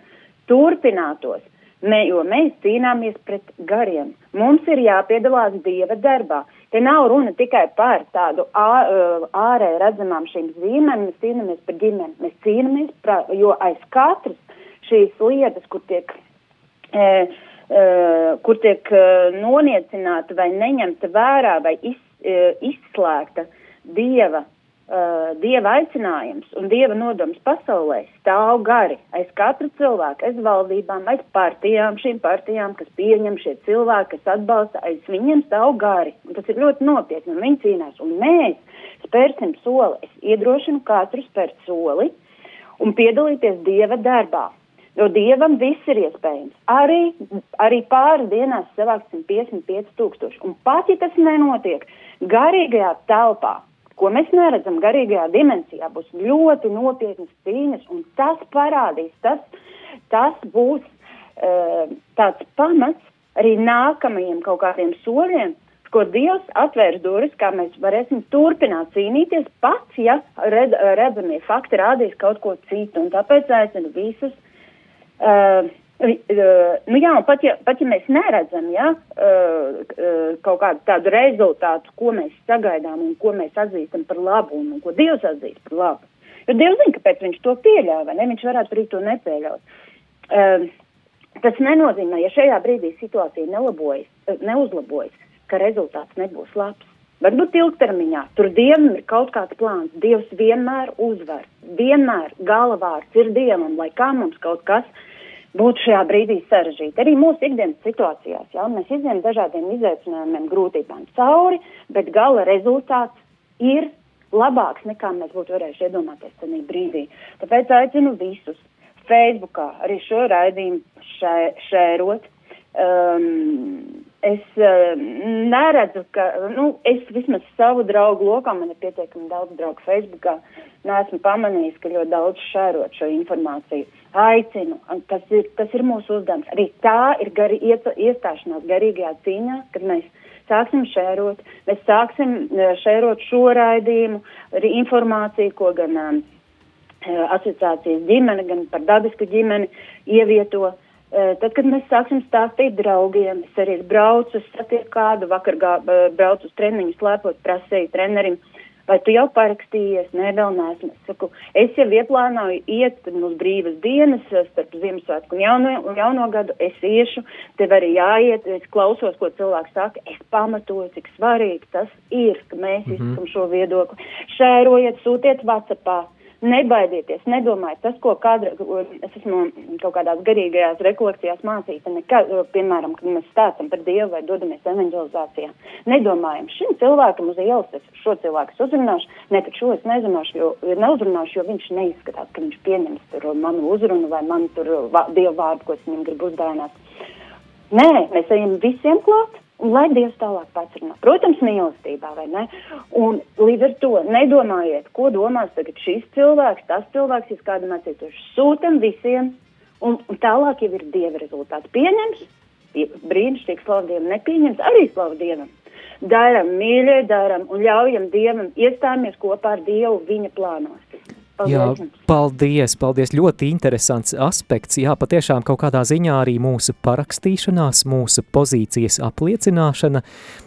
turpinātos. Jo mēs cīnāmies pret gariem. Mums ir jāpiedalās Dieva darbā. Te nav runa tikai par tādu ārēji redzamām šīm zīmēm, mēs cīnāmies par ģimeni. Mēs cīnāmies, jo aiz katras šīs lietas, kur tiek noniecināta vai neņemta vērā vai izslēgta Dieva aicinājums un Dieva nodoms pasaulē, stāv gari aiz katra cilvēka, aiz valdībām, aiz partijām, šīm partijām, kas pieņem šie cilvēki, kas atbalsta, aiz viņiem stāv gari. Un tas ir ļoti nopietni, un viņi cīnās. Un mēs spērsim soli. Es iedrošinu katru spērt soli un piedalīties Dieva darbā. Jo Dievam viss ir iespējams. Arī pāris dienās savākt 155,000. Un pat, ja tas nenotiek garīgajā telpā, ko mēs neredzam garīgajā dimensijā, būs ļoti nopietnas cīņas, un tas parādīs, tas būs tāds pamats arī nākamajiem kaut kādiem soļiem, ko Dievs atvērs durvis, kā mēs varēsim turpināt cīnīties, pats, ja redzamie fakti rādīs kaut ko citu, un tāpēc aicinu visus, pat ja mēs neredzam, kaut kādu tādu rezultātu, ko mēs sagaidām un ko mēs atzīstam par labu un ko Dievs atzīst par labu. Jo Dievs zina, kāpēc viņš to pieļauj, vai ne? Viņš varētu arī to nepieļaut. Tas nenozīmē, ja šajā brīdī situācija neuzlabojas, ka rezultāts nebūs labs. Varbūt ilgtermiņā. Tur Dievam ir kaut kāds plāns. Dievs vienmēr uzvar. Vienmēr galavārds ir Dievam, lai kā mums kaut kas būtu šajā brīdī sarežģīti. Arī mūsu ikdienas situācijās, mēs izējam dažādiem izaicinājumiem, grūtībām cauri, bet gala rezultāts ir labāks nekā mēs būtu varējuši iedomāties tajā brīdī. Tāpēc aicinu visus Facebookā arī šo raidījumu šērot. Es neredzu, ka, es vismaz savu draugu lokā, man ir pietiekami daudz draugu Facebookā, neesmu pamanījis, ka ļoti daudz šērot šo informāciju. Aicinu, tas ir mūsu uzdevums. Arī tā ir iestāšanās garīgajā cīņā, kad mēs sāksim šērot. Mēs sāksim šērot šo raidījumu, arī informāciju, ko gan asociācijas ģimene, gan par dabisku ģimeni ievieto. Tad, kad mēs sāksim stāstīt draugiem, es arī braucu, es satieku kādu, vakar braucu uz treniņu slēpot, prasēju trenerim, vai tu jau parakstījies? Nē, vēl neesmu. Es saku, es jau ieplānoju iet uz brīvas dienas, starp Ziemassvētku un jauno gadu, es iešu, tev arī jāiet, es klausos, ko cilvēks saka, es pamatoju, cik svarīgi tas ir, ka mēs izsakam šo viedokli. Šērojiet, sūtiet WhatsAppā. Nebaidieties, nedomājiet, tas, ko es esmu kaut kādās garīgajās rekolekcijās mācīta, piemēram, kad mēs stāstam par Dievu vai dodamies evanģelizācijā. Nedomājam, šim cilvēkam uz ielas es šo cilvēku uzrunāšu, bet šo es neuzrunāšu, jo viņš neizskatās, ka viņš pieņems tur manu uzrunu vai manu tur Dievu vārdu, ko es viņam gribu uzdāvināt. Nē, mēs ejam visiem klāt. Un lai Dievs tālāk pats runā. Protams, mīlestībā, vai ne? Un līdz ar to nedomājiet, ko domās tagad šis cilvēks, tas cilvēks, ja kādu mācītoši. Sūtam visiem, un tālāk jau ir Dieva rezultāti. Pieņems, brīnišķīgi slavu Dievam, nepieņems, arī slavu Dievam. Daram, mīļie, daram un ļaujam Dievam, iestājamies kopā ar Dievu viņa plānos. Jā, paldies. Ļoti interesants aspekts. Jā, patiešām kaut kādā ziņā arī mūsu parakstīšanās, mūsu pozīcijas apliecināšana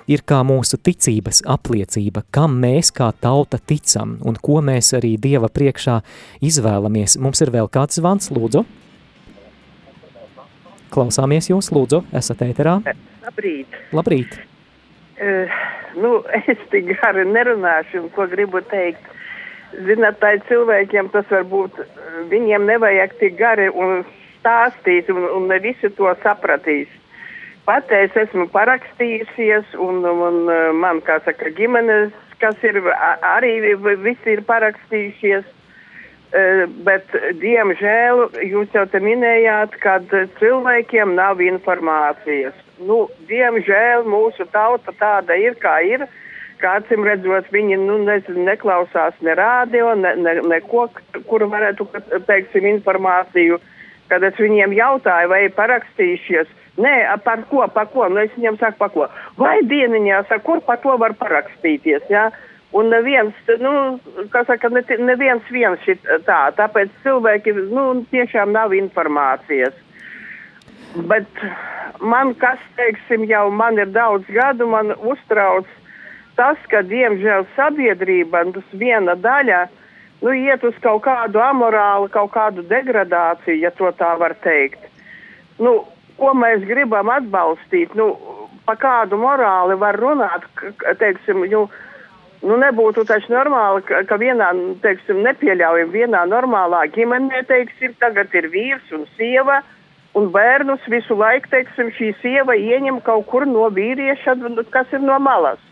ir kā mūsu ticības apliecība, kam mēs kā tauta ticam un ko mēs arī Dieva priekšā izvēlamies. Mums ir vēl kāds zvans, lūdzu. Klausāmies jūs, lūdzu, esat ēterā. Labrīt. Es tik gari nerunāšu, un ko gribu teikt. Zināt, tā cilvēkiem tas varbūt, viņiem nevajag tik gari un stāstīt, un ne visi to sapratīs. Pat es esmu parakstījusies, un man, kā saka, ģimenes, kas ir, arī visi ir parakstījušies, bet, diemžēl, jūs jau te minējāt, kad cilvēkiem nav informācijas. Diemžēl mūsu tauta tāda ir, kā ir. Kācim redzot, viņi neklausās ne rādio, neko, kur varētu, teiksim, informāciju. Kad es viņiem jautāju, vai parakstījušies, nē, par ko, es viņiem saku, par ko. Vai dieniņā, saku, kur par to var parakstīties, jā? Un neviens, neviens šit tā, tāpēc cilvēki, tiešām nav informācijas. Bet man, kas, teiksim, jau man ir daudz gadu, man uztrauc tas, ka, diemžēl, sabiedrība, tas viena daļa, iet uz kaut kādu amorālu, kaut kādu degradāciju, ja to tā var teikt. Ko mēs gribam atbalstīt, pa kādu morāli var runāt, teiksim, nebūtu taču normāli, ka vienā, teiksim, nepieļaujam vienā normālā ģimenē, teiksim, tagad ir vīrs un sieva, un bērnus visu laiku, teiksim, šī sieva ieņem kaut kur no vīrieša, kas ir no malas.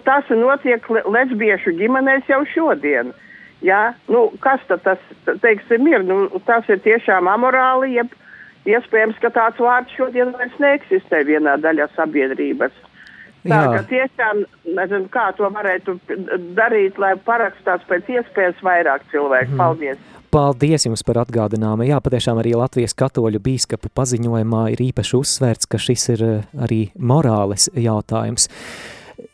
Tas notiek lesbiešu ģimenēs jau šodien. Jā? Kas tad tas, teiksim, ir? Tas ir tiešām amorāli, jeb iespējams, ka tāds vārds šodien vairs neeksistē vienā daļā sabiedrības. Tā, ka tiešām, nezinu, kā to varētu darīt, lai parakstās pēc iespējas vairāk cilvēku. Paldies! Paldies jums par atgādinājumu. Jā, patiešām arī Latvijas katoļu bīskapu paziņojumā ir īpaši uzsvērts, ka šis ir arī morāles jautājums.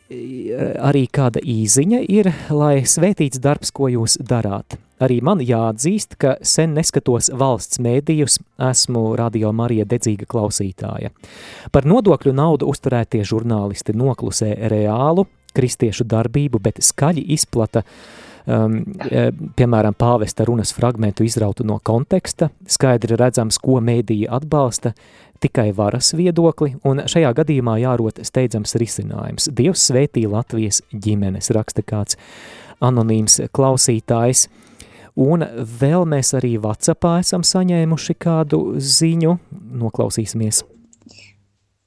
Arī kāda īziņa ir, lai svētīts darbs, ko jūs darāt. Arī man jāatzīst, ka sen neskatos valsts mēdījus, esmu Radio Marija dedzīga klausītāja. Par nodokļu naudu uzturētie žurnālisti noklusē reālu kristiešu darbību, bet skaļi izplata, piemēram, pāvesta runas fragmentu izrautu no konteksta, skaidri redzams, ko mēdīja atbalsta, tikai varas viedokli, un šajā gadījumā jārot steidzams risinājums. Dievs svētī Latvijas ģimenes, raksta kāds anonīms klausītājs. Un vēl mēs arī WhatsAppā esam saņēmuši kādu ziņu. Noklausīsimies.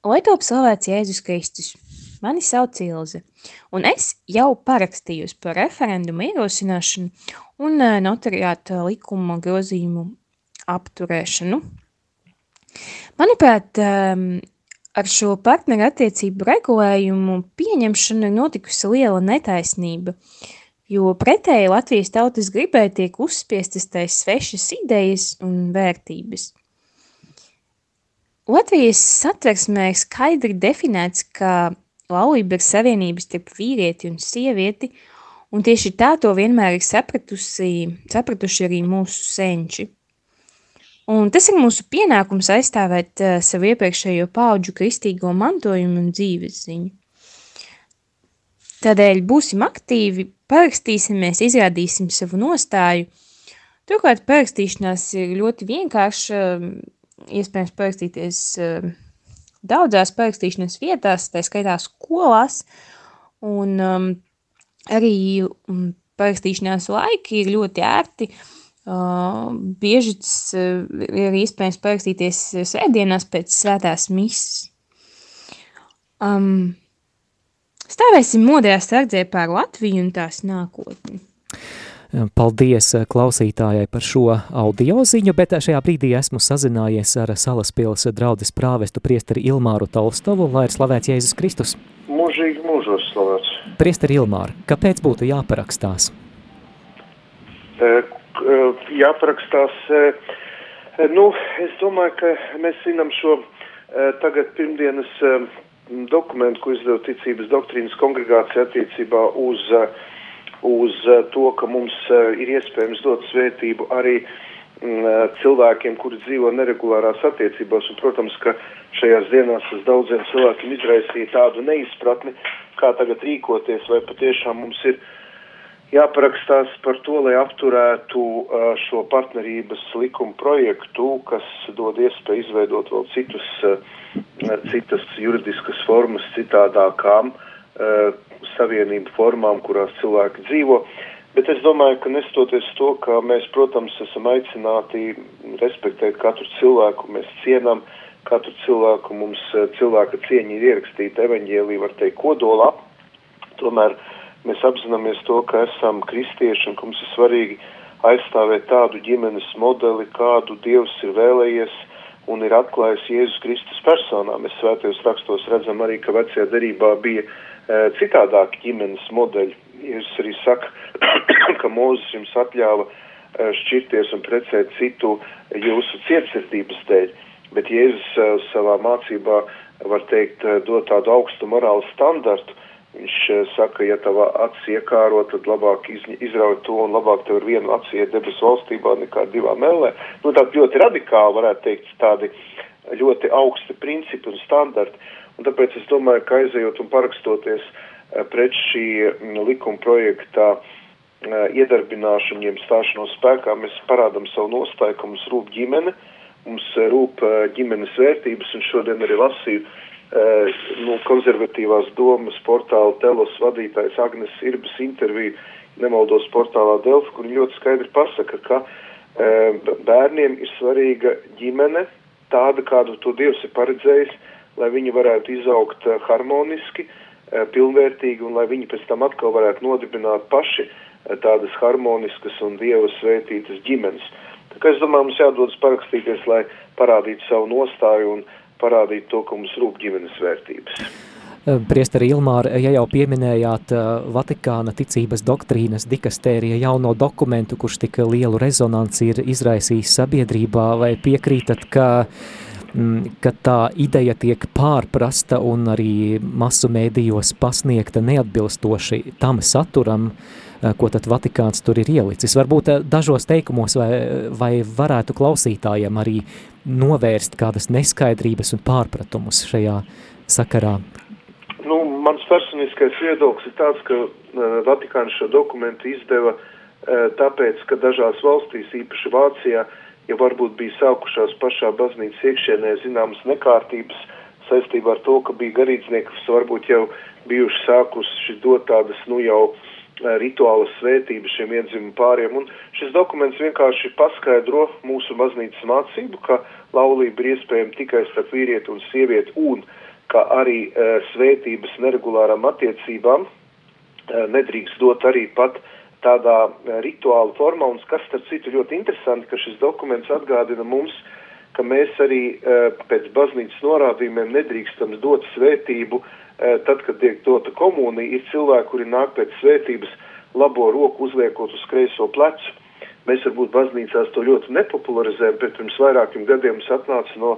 Lai top slavēts Jēzus Kristus. Mani sauc Ilze, un es jau parakstījos par referendumu ierosināšanu un notariāta likuma grozījumu apturēšanu. Manuprāt, ar šo partneru attiecību regulējumu pieņemšanu ir notikusi liela netaisnība, jo pretēji Latvijas tautas gribai tiek uzspiestas tais svešas idejas un vērtības. Latvijas satversmē ir skaidri definēts, ka laulība ir savienības starp vīrieti un sievieti, un tieši tā to vienmēr ir sapratuši arī mūsu senči. Un tas ir mūsu pienākums aizstāvēt savu iepriekšējo paudžu kristīgo mantojumu un dzīves ziņu. Tādēļ būsim aktīvi, parakstīsimies, izrādīsim savu nostāju. Turklāt parakstīšanās ir ļoti vienkārša, iespējams parakstīties daudzās parakstīšanas vietās, tā skaitā skolās, un arī parakstīšanās laiki ir ļoti ērti. Bieži tas ir iespējams parakstīties svētdienās pēc svētās misas. Stāvēsim modrā sardzē pār Latviju un tās nākotni. Paldies klausītājai par šo audio ziņu, bet šajā brīdī esmu sazinājies ar Salaspils draudzes prāvestu priesteri Ilmāru Tolstovu, lai ir slavēts Jēzus Kristus. Mūžīgi mūžos slavēts. Priesteri Ilmāra, kāpēc būtu jāparakstās? Jāparakstās, es domāju, ka mēs zinām šo tagad pirmdienas dokumentu, ko izdeva Ticības doktrīnas kongregācija attiecībā uz uz to, ka mums ir iespējams dot svētību arī cilvēkiem, kuri dzīvo neregulārās attiecībās, un, protams, ka šajās dienās tas daudziem cilvēkiem izraisīja tādu neizpratni, kā tagad rīkoties, vai patiešām mums ir jāparakstās par to, lai apturētu šo partnerības likuma projektu, kas dod iespēju izveidot vēl citas juridiskas formas citādākām savienību formām, kurās cilvēki dzīvo. Bet es domāju, ka nestoties to, ka mēs, protams, esam aicināti respektēt katru cilvēku, mēs cienam katru cilvēku, mums cilvēka cieņa ir ierakstīta evaņģēlī, var teikt, kodolā. Tomēr mēs apzināmies to, ka esam kristieši un ka mums ir svarīgi aizstāvēt tādu ģimenes modeli, kādu Dievs ir vēlējies un ir atklājis Jēzus Kristus personā. Mēs svētajos rakstos redzam arī, ka vecajā derībā bija citādāki ģimenes modeļi. Jēzus arī saka, ka Mūzes jums atļāva šķirties un precēt citu jūsu cietsirdības dēļ, bet Jēzus savā mācībā, var teikt, dod tādu augstu morālu standartu. Viņš saka, ja tava acis iekāro, tad labāk izrauj to un labāk tev ar vienu aci iet debesu valstībā nekā divām ellē. Tādi ļoti radikāli, varētu teikt, tādi ļoti augsti principi un standarti. Un tāpēc es domāju, ka aizejot un parakstoties pret šī likuma projektā iedarbināšanu, jeb stāšanos spēkā, mēs parādam savu nostāju, ka mums rūp ģimene, mums rūp ģimenes vērtības, un šodien arī lasīju konservatīvās domas portāla Telos vadītājs Agnes Irbas interviju, nemaldos portālā Delfi, kur viņi ļoti skaidri pasaka, ka bērniem ir svarīga ģimene, tāda, kādu to Dievs ir paredzējis, lai viņi varētu izaugt harmoniski, pilnvērtīgi, un lai viņi pēc tam atkal varētu nodibināt paši tādas harmoniskas un Dieva svētītas ģimenes. Tā kā es domāju, mums jādodas parakstīties, lai parādītu savu nostāju un parādītu to, ka mums rūp ģimenes vērtības. Priesteri Ilmāra, ja jau pieminējāt Vatikāna ticības doktrīnas dikastērija jauno dokumentu, kurš tik lielu rezonanci ir izraisījis sabiedrībā, vai piekrītat, ka tā ideja tiek pārprasta un arī masu mēdījos pasniegta neatbilstoši tam saturam, ko tad Vatikāns tur ir ielicis? Varbūt dažos teikumos vai varētu klausītājiem arī novērst kādas neskaidrības un pārpratumus šajā sakarā? Mans personiskais viedoklis ir tāds, ka Vatikāns šo dokumentu izdeva tāpēc, ka dažās valstīs, īpaši Vācijā, ja varbūt bija sākušās pašā baznīcas iekšienē zināmas nekārtības saistībā ar to, ka bija garīdznieki, kas varbūt jau bijuši sākuši dot tādas, jau rituālas svētības šiem viendzimumu pāriem. Un šis dokuments vienkārši paskaidro mūsu baznīcas mācību, ka laulība ir iespējama tikai starp vīrieti un sievieti, un ka arī svētības neregulārām attiecībām nedrīkst dot arī pat tādā rituāla formā, un kas starp citu ļoti interesanti, ka šis dokuments atgādina mums, ka mēs arī pēc baznīcas norādījumiem nedrīkstam dot svētību, tad, kad tiek dota komunija, ir cilvēki, kuri nāk pēc svētības labo roku uzliekot uz kreiso plecu. Mēs varbūt baznīcās to ļoti nepopularizējam, bet pirms vairākiem gadiem mums atnāca no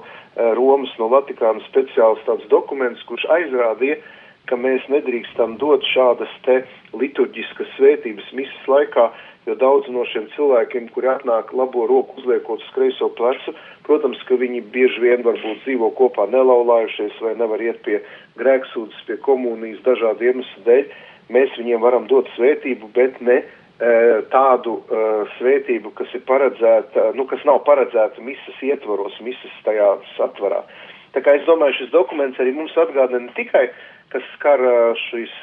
Romas, no Vatikāna speciāls tāds dokuments, kurš aizrādīja, ka mēs nedrīkstam dot šādas te liturģiskas svētības misas laikā, jo daudz no šiem cilvēkiem, kuri atnāk labo roku uzliekot uz kreiso plecu, protams, ka viņi bieži vien varbūt dzīvo kopā nelaulājušies vai nevar iet pie grēksūdzes, pie komunijas dažādu iemeslu dēļ. Mēs viņiem varam dot svētību, bet ne tādu svētību, kas ir paredzēta, kas nav paredzēta misas ietvaros, misas tajā satvarā. Tā kā es domāju, šis dokuments arī mums atgādina ne tikai, kas skar šīs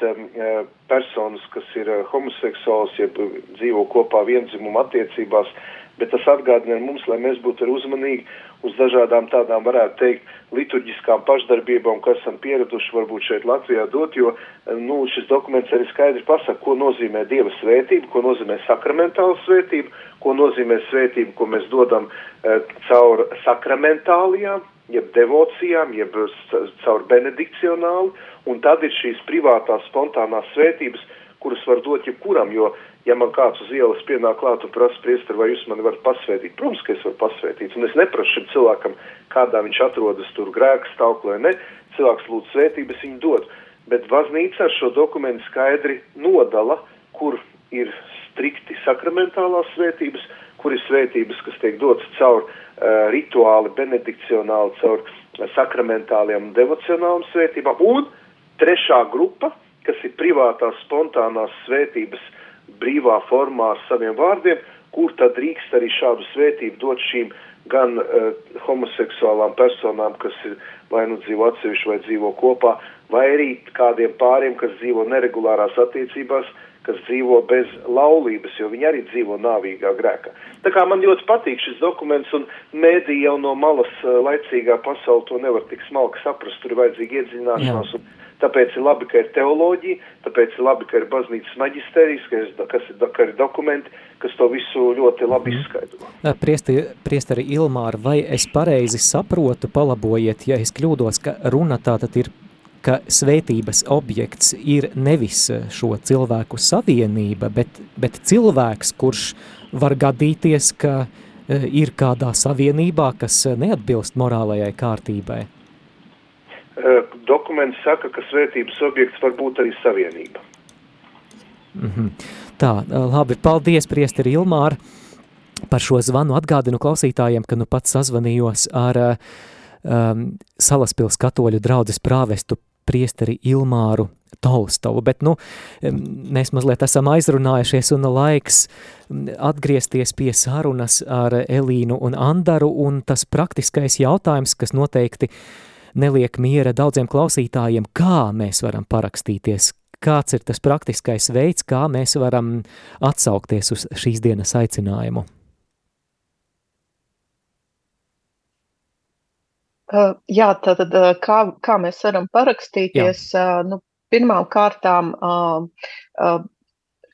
personas, kas ir homoseksuāls, jeb dzīvo kopā viendzimumu attiecībās, bet tas atgādina mums, lai mēs būtu arī uzmanīgi uz dažādām tādām, varētu teikt, liturģiskām pašdarbībām, kas esam pieraduši varbūt šeit Latvijā dot, jo šis dokuments arī skaidri pasaka, ko nozīmē Dieva svētība, ko nozīmē sakramentāla svētība, ko nozīmē svētība, ko mēs dodam caur sakramentālijām, jeb devocijām, jeb caur benedikcionāli, un tad ir šīs privātās, spontānās svētības, kuras var dot jebkuram, jo, ja man kāds uz ielas pienāk klāt un prasa, priesteri, vai jūs mani varat pasvētīt? Protams, ka es varu pasvētīt, un es neprasu šim cilvēkam, kādā viņš atrodas tur grēka stāvoklī, ne, cilvēks lūdz svētības, viņu dod, bet baznīca ar šo dokumentu skaidri nodala, kur ir strikti sakramentālās svētības, kur ir svētības, kas tiek dotas caur rituāli, benedikcionāli, caur sakramentāliem un devocionāliem svētībām, un trešā grupa, kas ir privātās, spontānās svētības brīvā formā ar saviem vārdiem, kur tad drīkst arī šādu svētību dot šīm gan homoseksuālām personām, kas ir vai nu dzīvo atsevišķi vai dzīvo kopā, vai arī kādiem pāriem, kas dzīvo neregulārās attiecībās, kas dzīvo bez laulības, jo viņi arī dzīvo nāvīgā grēkā. Tā kā man ļoti patīk šis dokuments, un mēdī jau no malas laicīgā pasauli to nevar tik smalki saprast, tur ir vajadzīga iedziļināšanās, un tāpēc ir labi, ka ir teoloģija, tāpēc ir labi, ka ir baznīcas maģistērijas, ka ir dokumenti, kas to visu ļoti labi izskaidro. Priesteri Ilmāra, vai es pareizi saprotu, palabojiet, ja es kļūdos, ka runa tātad ir, ka svētības objekts ir nevis šo cilvēku savienība, bet cilvēks, kurš var gadīties, ka ir kādā savienībā, kas neatbilst morālajai kārtībai? Dokuments saka, ka svētības objekts var būt arī savienība. Tā, labi, paldies, priesteri Ilmāra, par šo zvanu. Atgādinu klausītājiem, ka nu pats sazvanījos ar Salaspils katoļu draudzes prāvestu priesteri Ilmāru Tolstovu, bet mēs mazliet esam aizrunājušies un laiks atgriezties pie sarunas ar Elīnu un Andaru, un tas praktiskais jautājums, kas noteikti neliek miera daudziem klausītājiem, kā mēs varam parakstīties, kāds ir tas praktiskais veids, kā mēs varam atsaukties uz šīs dienas aicinājumu. Jā, tātad kā mēs varam parakstīties, pirmām kārtām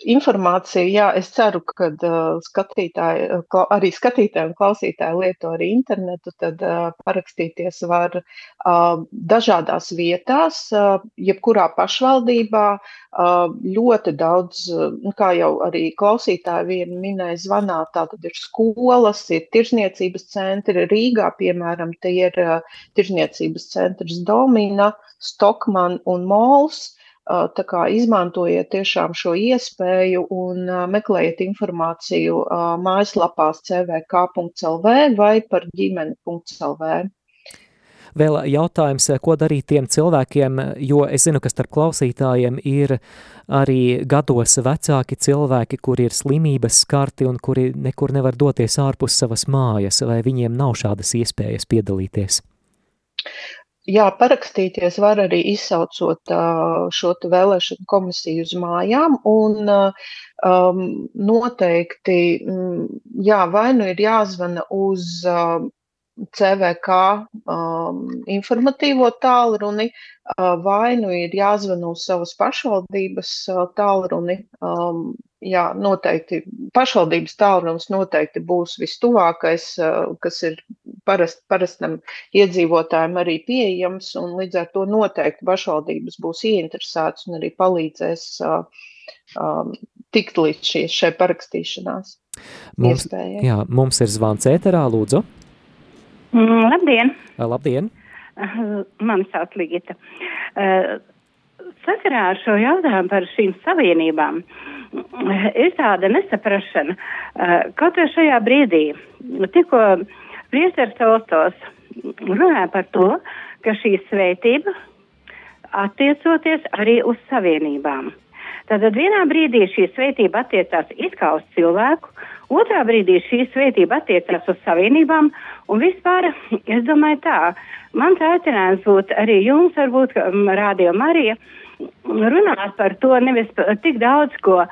informācija, jā, es ceru, ka arī skatītāji un klausītāji lieto arī internetu, tad parakstīties var dažādās vietās, jebkurā pašvaldībā, ļoti daudz, kā jau arī klausītāji vien minēja zvanā, tātad ir skolas, ir tirzniecības centri, Rīgā, piemēram, tie ir tirzniecības centrs Domina, Stokman un Mols. Tā kā izmantojiet tiešām šo iespēju un meklējiet informāciju mājaslapās cvk.lv vai par ģimeni.lv. Vēl jautājums, ko darīt tiem cilvēkiem, jo es zinu, ka starp klausītājiem ir arī gados vecāki cilvēki, kuri ir slimības skarti un kuri nekur nevar doties ārpus savas mājas, vai viņiem nav šādas iespējas piedalīties? Jā, parakstīties var arī izsaucot šo vēlēšanu komisiju uz mājām, un noteikti, jā, vai nu ir jāzvana uz CVK informatīvo tālruni, vai nu ir jāzvana uz savas pašvaldības tālruni. Jā, noteikti pašvaldības tālrunis noteikti būs vistuvākais, kas ir parastam iedzīvotājiem arī pieejams, un līdz ar to noteikti pašvaldības būs ieinteresētas un arī palīdzēs tikt līdz šai parakstīšanās iespējai. Jā, mums ir zvans ēterā, lūdzu. Labdien! Labdien! Mani sauc Ligita. Sakarā ar šo jautājumu par šīm savienībām ir tāda nesaprašana, kaut vai šajā brīdī, tikko priesteris Tolstojs runāja par to, ka šī svētība attiecoties arī uz savienībām. Tātad vienā brīdī šī svētība attiecās it kā uz cilvēku, otrā brīdī šī svētība attiecās uz savienībām, un vispār, es domāju tā, mans aicinājums būtu arī jums, varbūt Radio Marija, runāt par to nevis tik daudz, ko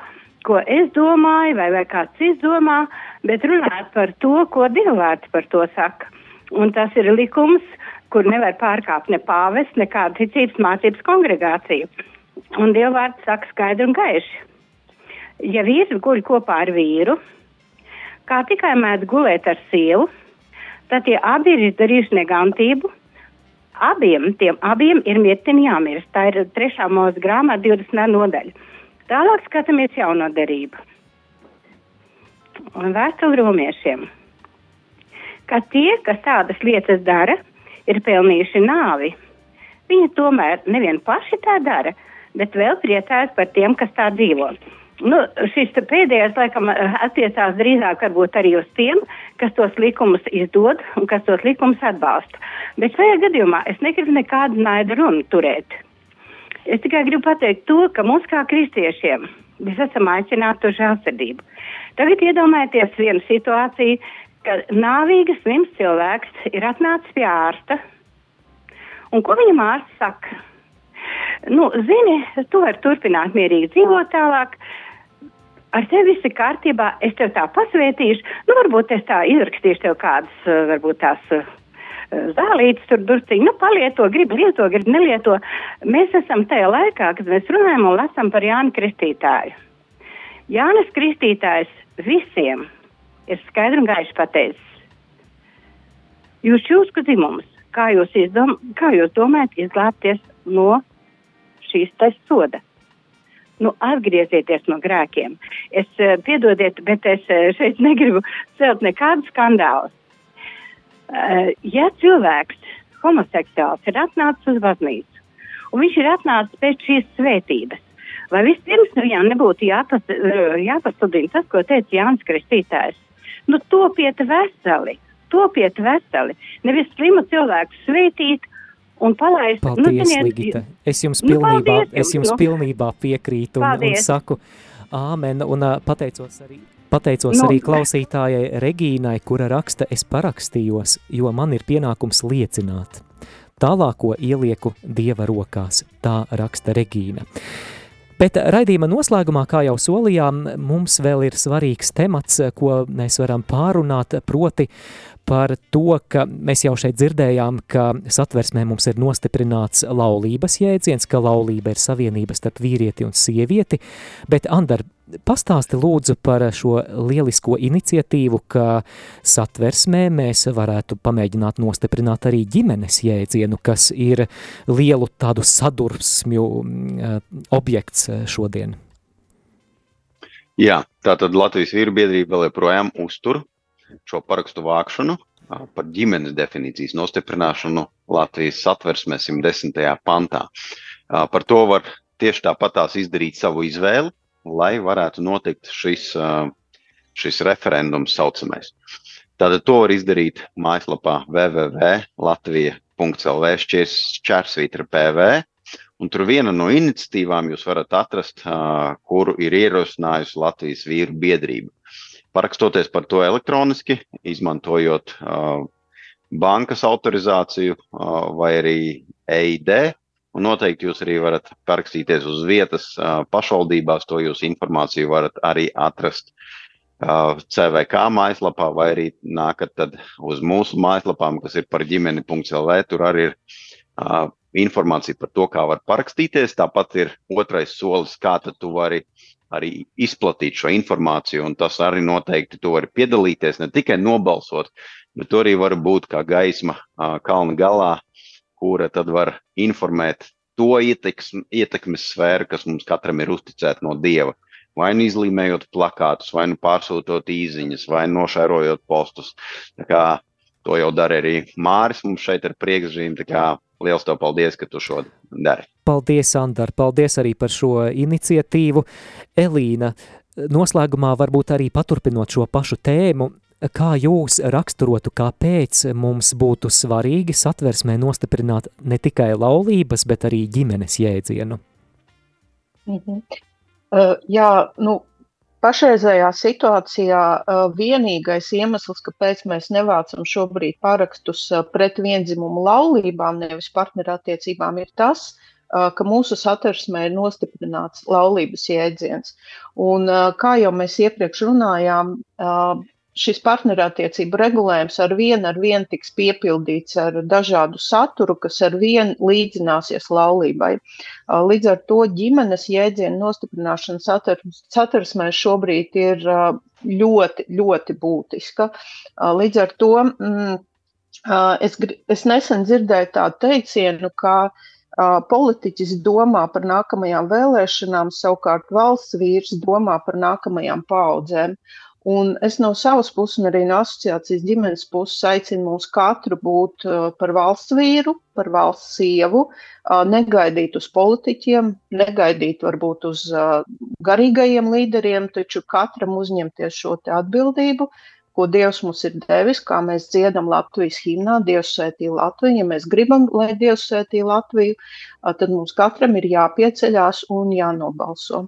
es domāju, vai kāds cits domā, bet runāt par to, ko Dievvvārds par to saka. Un tas ir likums, kur nevar pārkāpt ne pāvests, ne kāda ticības mācības kongregācija. Un Dievvvārds saka skaidri un gaiši. Ja vīrs guļ kopā ar vīru, kā tikai mēdz gulēt ar sievu, tad tie abi ir izdarījuši negantību. Tiem abiem ir mirtini jāmirst. Tā ir 3. Mūzes grāmata 20. nodaļa. Tālāk skatāmies jauno derību. Un vēstuli romiešiem. Ka tie, kas tādas lietas dara, ir pelnījuši nāvi. Viņi tomēr nevien paši tā dara, bet vēl priecājas par tiem, kas tā dzīvo. šis pēdējais, laikam, attiecās drīzāk varbūt arī uz tiem, kas tos likumus izdod un kas tos likumus atbalsta. Bet šajā gadījumā es negribu nekādu naidu runu turēt. Es tikai gribu pateikt to, ka mums kā kristiešiem mēs esam aicināti uz žēlsirdību. Tagad iedomājieties vienu situāciju, ka nāvīgas slims cilvēks ir atnācis pie ārsta, un ko viņam ārsts saka? Zini, tu vari turpināt mierīgi dzīvot tālāk, ar tevi viss ir kārtībā, es tev tā pasvētīšu, varbūt es tā izrakstīšu tev kādas, varbūt tās zālītes tur durciņi, palieto, gribi lieto, gribi nelieto. Mēs esam tajā laikā, kad mēs runājam un lasam par Jāni Kristītāju. Jānis Kristītājs visiem ir skaidri un gaiši pateicis. Jūs čūsku dzimums, kā jūs domājat izglābties no šīs soda? Atgriezieties no grēkiem. Piedodiet, bet es šeit negribu celt nekādu skandālu. Ja cilvēks homoseksuāls ir atnācis uz baznīcu, un viņš ir atnācis pēc šīs svētības, vai vispirms viņam nebūtu jāpasludina tas, ko teica Jānis Kristītājs? Topiet veseli. Nevis slimu cilvēku svētīt, un palaist. Paldies, Ligita. Es jums pilnībā piekrītu un saku āmen, un pateicos arī klausītājai Regīnai, kura raksta, es parakstījos, jo man ir pienākums liecināt. Tālāko ielieku Dieva rokās, tā raksta Regīna. Bet raidījuma noslēgumā, kā jau solījām, mums vēl ir svarīgs temats, ko mēs varam pārunāt, proti par to, ka mēs jau šeit dzirdējām, ka satversmē mums ir nostiprināts laulības jēdziens, ka laulība ir savienība starp vīrieti un sievieti, bet Andar, pastāsti lūdzu par šo lielisko iniciatīvu, ka satversmē mēs varētu pamēģināt nostiprināt arī ģimenes jēdzienu, kas ir lielu tādu sadursmju objekts šodien. Jā, tātad Latvijas vīru biedrība vēl joprojām uztur šo parakstu vākšanu par ģimenes definīcijas nostiprināšanu Latvijas satversmē 110. pantā. Par to var tieši tāpatās izdarīt savu izvēli, lai varētu notikt šis referendums saucamais. Tātad to var izdarīt mājaslapā www.latvija.lv/PV, un tur viena no iniciatīvām jūs varat atrast, kuru ir ierosinājusi Latvijas vīru biedrība. Parakstoties par to elektroniski, izmantojot bankas autorizāciju vai arī EID, un noteikti jūs arī varat parakstīties uz vietas pašvaldībās, to jūs informāciju varat arī atrast CVK mājaslapā, vai arī nākat tad uz mūsu mājaslapām, kas ir par ģimeni.lv, tur arī ir informācija par to, kā var parakstīties, tāpat ir otrais solis, kā tad tu vari arī izplatīt šo informāciju, un tas arī noteikti tu vari piedalīties, ne tikai nobalsot, bet tu arī vari būt kā gaisma kalna galā, kura tad var informēt to ietekmes sfēru, kas mums katram ir uzticēta no Dieva. Vai nu izlīmējot plakātus, vai nu pārsūtot īziņas, vai nošērojot postus. Tā kā to jau dara arī Māris mums šeit ar priekšzīmi, tā kā liels tev paldies, ka tu šo dari. Paldies, Andar, paldies arī par šo iniciatīvu. Elīna, noslēgumā varbūt arī paturpinot šo pašu tēmu, kā jūs raksturotu, kāpēc mums būtu svarīgi satversmē nostiprināt ne tikai laulības, bet arī ģimenes jēdzienu? Pašreizējā situācijā vienīgais iemesls, kāpēc mēs nevācam šobrīd parakstus pret viendzimumu laulībām, nevis partnerattiecībām, ir tas, ka mūsu satversmē ir nostiprināts laulības jēdziens. Un kā jau mēs iepriekš runājām, šis partnerattiecību regulējums ar vienu tiks piepildīts ar dažādu saturu, kas ar vienu līdzināsies laulībai. Līdz ar to ģimenes jēdzienu nostiprināšana satversmē šobrīd ir ļoti, ļoti būtiska. Līdz ar to es nesen dzirdēju tādu teicienu, ka politiķis domā par nākamajām vēlēšanām, savukārt valsts vīrs domā par nākamajām paaudzēm. Un es no savas puses un arī no asociācijas ģimenes puses aicinu mūs katru būt par valsts vīru, par valsts sievu, negaidīt uz politiķiem, negaidīt varbūt uz garīgajiem līderiem, taču katram uzņemties šo te atbildību, ko Dievs mums ir devis, kā mēs dziedam Latvijas himnā, Dievs svētī Latviju. Ja mēs gribam, lai Dievs svētī Latviju, tad mums katram ir jāpieceļās un jānobalso.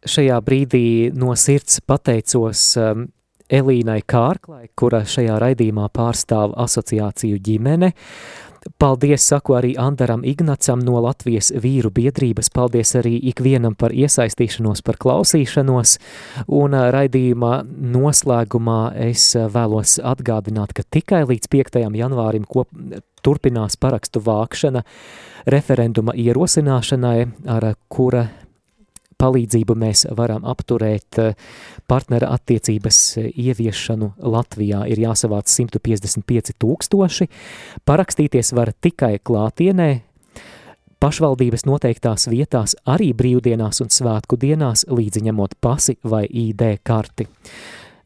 Šajā brīdī no sirds pateicos Elīnai Kārklai, kura šajā raidījumā pārstāv asociāciju ģimene. Paldies saku arī Andaram Ignacam no Latvijas vīru biedrības, paldies arī ikvienam par iesaistīšanos, par klausīšanos, un raidījuma noslēgumā es vēlos atgādināt, ka tikai līdz 5. janvārim turpinās parakstu vākšana referenduma ierosināšanai, ar kura palīdzību mēs varam apturēt partnera attiecības ieviešanu Latvijā. Ir jāsavāc 155 000. Parakstīties var tikai klātienē, pašvaldības noteiktās vietās, arī brīvdienās un svētku dienās, līdzi ņemot pasi vai ID karti.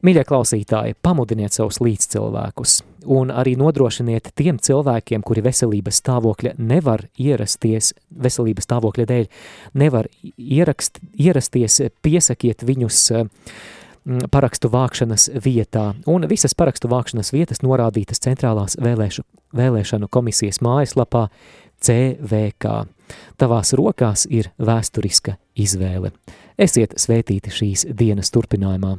Mīļie klausītāji, pamudiniet savus līdzcilvēkus un arī nodrošiniet tiem cilvēkiem, kuri veselības stāvokļa nevar ierasties, veselības stāvokļa dēļ nevar ierasties, piesakiet viņus parakstu vākšanas vietā. Un visas parakstu vākšanas vietas norādītas Centrālās vēlēšanu komisijas mājaslapā CVK. Tavās rokās ir vēsturiska izvēle. Esiet svētīti šīs dienas turpinājumā.